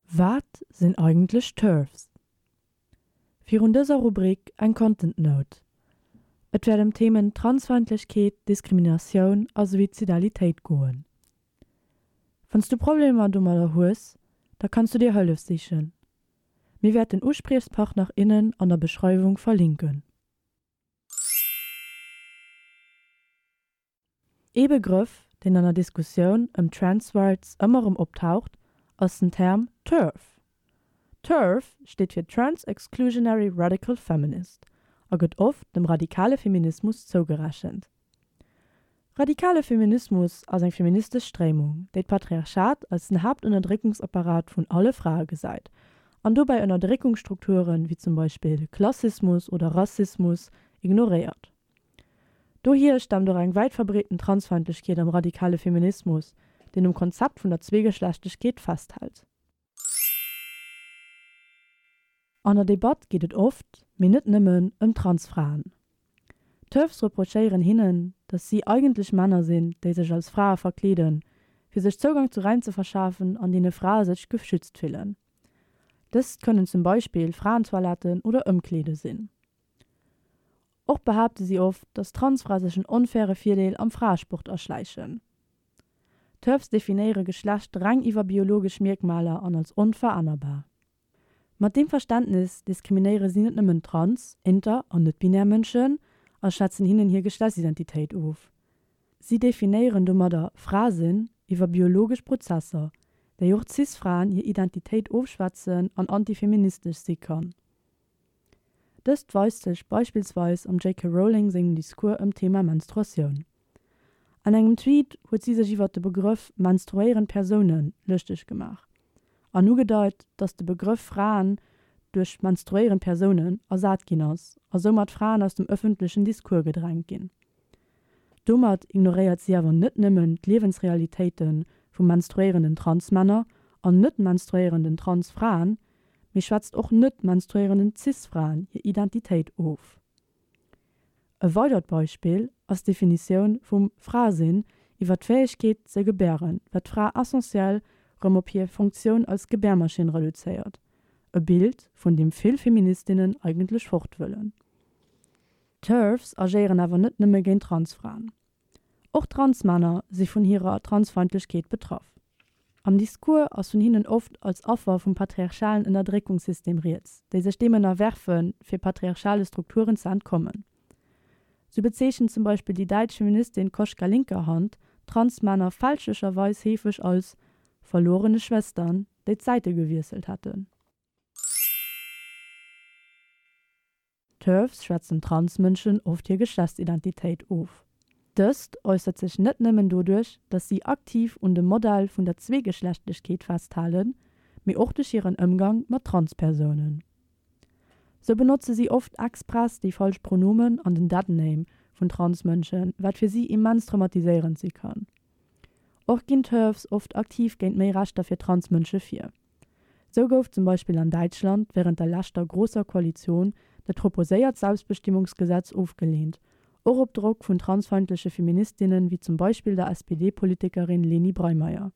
Wat sinn eigentlech TERFs? Virun dëser Rubrik eng Content Note. Et wäert ëm d'Themen Transfeindlechkeet, Diskriminatioun a Suizidalitéit goen. Wann s du Problemer domadder hues, da kanns du dir Hëllef sichen. Mir wäerten Uspriechspartner, innen an der Beschreiwung verlinken. Ee Begrëff, deen an der Diskussioun ëm Trans Rights ëmmer erëm optaucht, ass den Term TERF. TERF steet fir Trans Exclusionary Radical Feminist a gëtt oft dem radikale Feminismus zougerechent. Radikale Feminismus ass eng feministesch Stréimung, déi d'Patriarchat als den Haaptënnerdréckungsapparat vun alle Frae gesäit an dobäi Ënnerdréckungsstrukturen, wéi zum Beispill Klassismus oder Rassismus, ignoréiert. Dohier staamt och eng wäit verbreeten Transfeindlechkeet am radikale Feminismus, deen um Konzept vun der Zweegeschlechtlechkeet festhält. An der Debatt geet et oft, mee net nëmmen, ëm Transfraen. D'TERFs reprochéieren hinnen, datt si eigentlech Männer sinn, déi sech als Frae verkleeden, fir sech Zougang zu Räim ze verschafen, an deene Frae sech geschützt fillen. Dëst kënnen zum Beispill Fraentoiletten oder Ëmkleede sinn. Och behaapte si oft, datt Transfrae sech en onfaire Virdeel am Fraesport erschläichen. TERFs definéiere Geschlecht reng iwwer biologesch Mierkmaler an als onverännerbar. Mat deem Verständnis diskriminéiere si net nëmmen trans-, inter an net-binär Mënschen a schwätzen hinnen hir Geschlechtsidentitéit of. Si definéieren domadder Fra-sinn iwwer biologesch Prozesser, déi och Cis-Fraen hir Identitéit ofschwätzen an antifeministesch si kann. Dëst weist sech beispillsweis am JK. Rowling sengem Discours ëm d'Thema Menstruatioun. An engem Tweet huet si sech iwwert de Begrëff menstruéierend Persoune lëschteg gemaach an ugedeit, datt de Begrëff Fraen duerch menstruéierend Persounen ersat ginn ass a soumat Fraen aus dem ëffentlechen Discours gedrängt ginn. Domat ignoréiert si awer net nëmmen d'Liewensrealitéite vu menstruéierenden Transmänner an net-menstruéierenden Transfraen, mee schwätzt och net-menstruéierenden Cis-Fraen hir Identitéit of. E weidert Beispill ass d'Definitioun vum Fra-Sinn iwwer d'Fäegkeet ze gebären, wat d'Fra essentiell rëm op hir Funktioun als Gebärmaschinn reduzéiert, e Bild, vun deem vill Feministinnen eigentlech fort wëllen. D'TERFs agéieren awer net nëmme géint Transfraen. Och Transmänner si vun hirer Transfeindlechkeet betraff. Am Discours ass vun hinnen oft als Affer vum patriarchalen Ënnerdréckungssystem rieds, déi sech deem ënnerwerfen, fir patriarchale Strukturen ze entkommen. Sou bezeechent zum Beispill déi däitsch Feministin Koschka Linkerhand Transmänner fälschlecherweis heefeg als verlorene Schwestern, déi d'Säite gewiesselt hätten. TERFs schwätzen Transmënschen oft hir Geschlechtsidentitéit of. Dëst äussert sech net nëmmen doduerch, datt si aktiv un dem Modell vun der Zweegeschlechtlechkeet festhalen, mee och duerch hiren Ëmgang mat Transpersounen. Sou benotze si oft express déi falsch Pronomen an den Deadname vun Transmënschen, wat fir si immens traumatiséierend si kann. Och ginn TERFs oft aktiv géint méi Rechter fir Transmënsche vir. Sou gouf zum Beispill an Däitschland wärend der leschter Großer Koalition dat proposéiert Selbstbestimmungsgesetz ofgeleent, och op Drock vun transfeindleche Feministinnen wéi zum Beispill der SPD-Politikerin Leni Breymaier.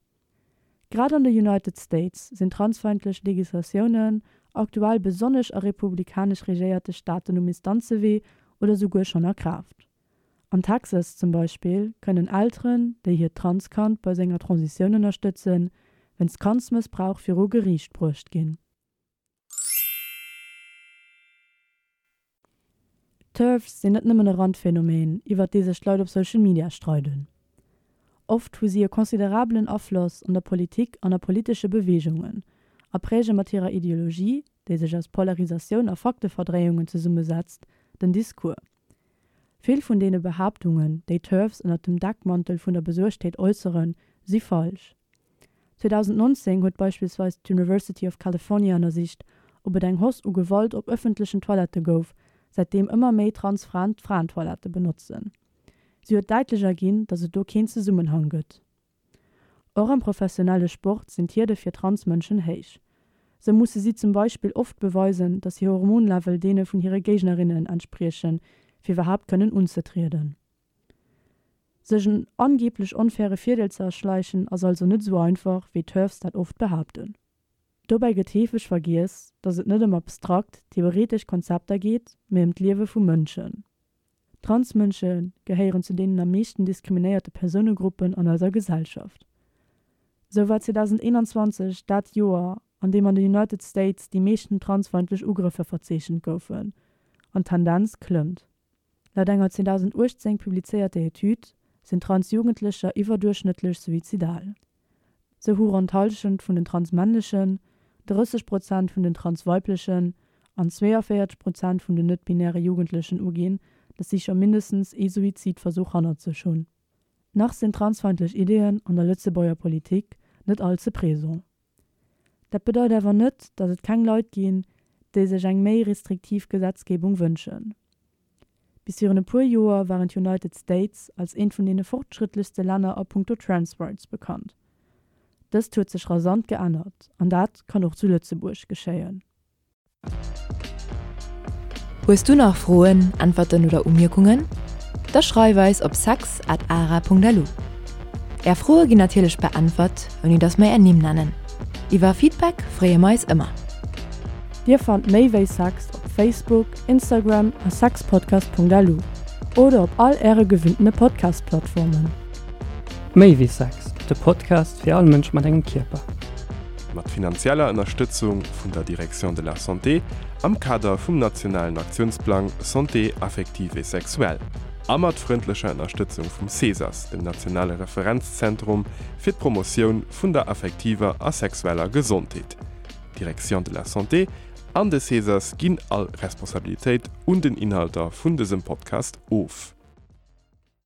Grad an de United States sinn transfeindlech Legislatiounen aktuell besonnesch a republikanesch regéierte Staaten um Instanzewee oder souguer schonn a Kraaft. An Texas zum Beispill kënnen Elteren, déi hiert Transkand bei senger Transitioun ënnerstëtzen, wéinst Kandsmëssbrauch viru Geriicht bruecht ginn. TERFs sinn net nëmmen e Randphänomen, iwwert dee sech d'Leit op Social Media streiden. Oft hu si e considerabelen Afloss an der Politik an a politesche Beweegungen a präge mat hirer Ideologie, déi sech aus Polarisatioun a Fakteverdréiungen zesummesetzt, den Discours. Vill vun deene Behaaptungen, déi TERFs ënnert dem Deckmantel vun der Besuergtheet äusseren, si falsch. 2019 huet beispillsweis d'University of California ënnersicht, ob et eng Hausse u Gewalt op ëffentlechen Toilette gouf, säitdeem ëmmer méi trans Fraen d'Fraentoilette benotzen. Si huet däitlech erginn, datt et do keen Zesummenhang gëtt. Och am professionelle Sport sinn d'Hierde fir trans Mënschen héich. Sou musse si zum Beispill oft beweisen, datt hir Hormonlevel deene vun hire Géignerinnen entspriechen, fir iwwerhaapt kënnen unzetrieden. Sech en angeeblech onfaire Virdeel ze erschleichen ass also net esou einfach, wéi d'TERFs dat oft behaapten. Dobäi gëtt heefeg vergiess, datt et net ëm abstrakt, theoretesch Konzepter geet, mee ëm d'Liewe vu Mënschen. Transmënsche gehéieren zu deenen am meeschten diskriminéierte Persounegruppen an eiser Gesellschaft. Sou war 2021 dat Joer, an deem an de United States déi meeschten transfeindlech Ugrëffer verzeechent goufen, an d'Tendenz klëmmt. Laut enger 2018 publizéierter Etüd sinn Trans-Jugendlecher iwwerduerchschnëttlech suizidal. Sou hu ronn d'Hallschent vun den transmännlechen, 30 Prozent vun den transweiblechen an 42 Prozent vun den net-binäre Jugendlechen uginn, datt si scho mindestens ee Suizidversuch hannert sech hunn. Nach sinn transfeindlech Ideeën an der Lëtzebuerger Politik net all ze présent. Dat bedeit awer net, datt et keng Leit ginn, déi sech eng méi restriktiv Gesetzgebung wënschen. Bis virun e puer Joer waren d'United States als eent vun deene fortschrëttlechste Länner a punkto Trans Rights bekannt. Dëst huet sech rasant geännert an dat kann och zu Lëtzebuerg geschéien. Hues du nach Froen, Äntwerten oder Umierkungen? Da schreif eis op sex at ara.lu. Är Froe ginn natierlech beäntwert, ouni dass mer är Nimm nennen. Iwwer Feedback freeë mer eis ëmmer. Dir fannt méi wéi Sex op Facebook, Instagram a sexpodcast.lu oder op all äre gewinntene Podcast-Plattformen. Méi wéi Sex, de Podcast fir all Mënsch mat engem Kierper. Mat finanzieller Ënnerstëtzung vun der Direction de la Santé am Kader vum nationalen Aktiounsplang Santé affective et sexuelle a mat frëndlecher Ënnerstëtzung vum CESAS, dem nationale Referenzzentrum fir d'Promotioun vun der affektiver a sexueller Gesondheet. D'Direction de la Santé an de CESAS ginn all Responsabilitéit un den Inhalter vun dësem Podcast of.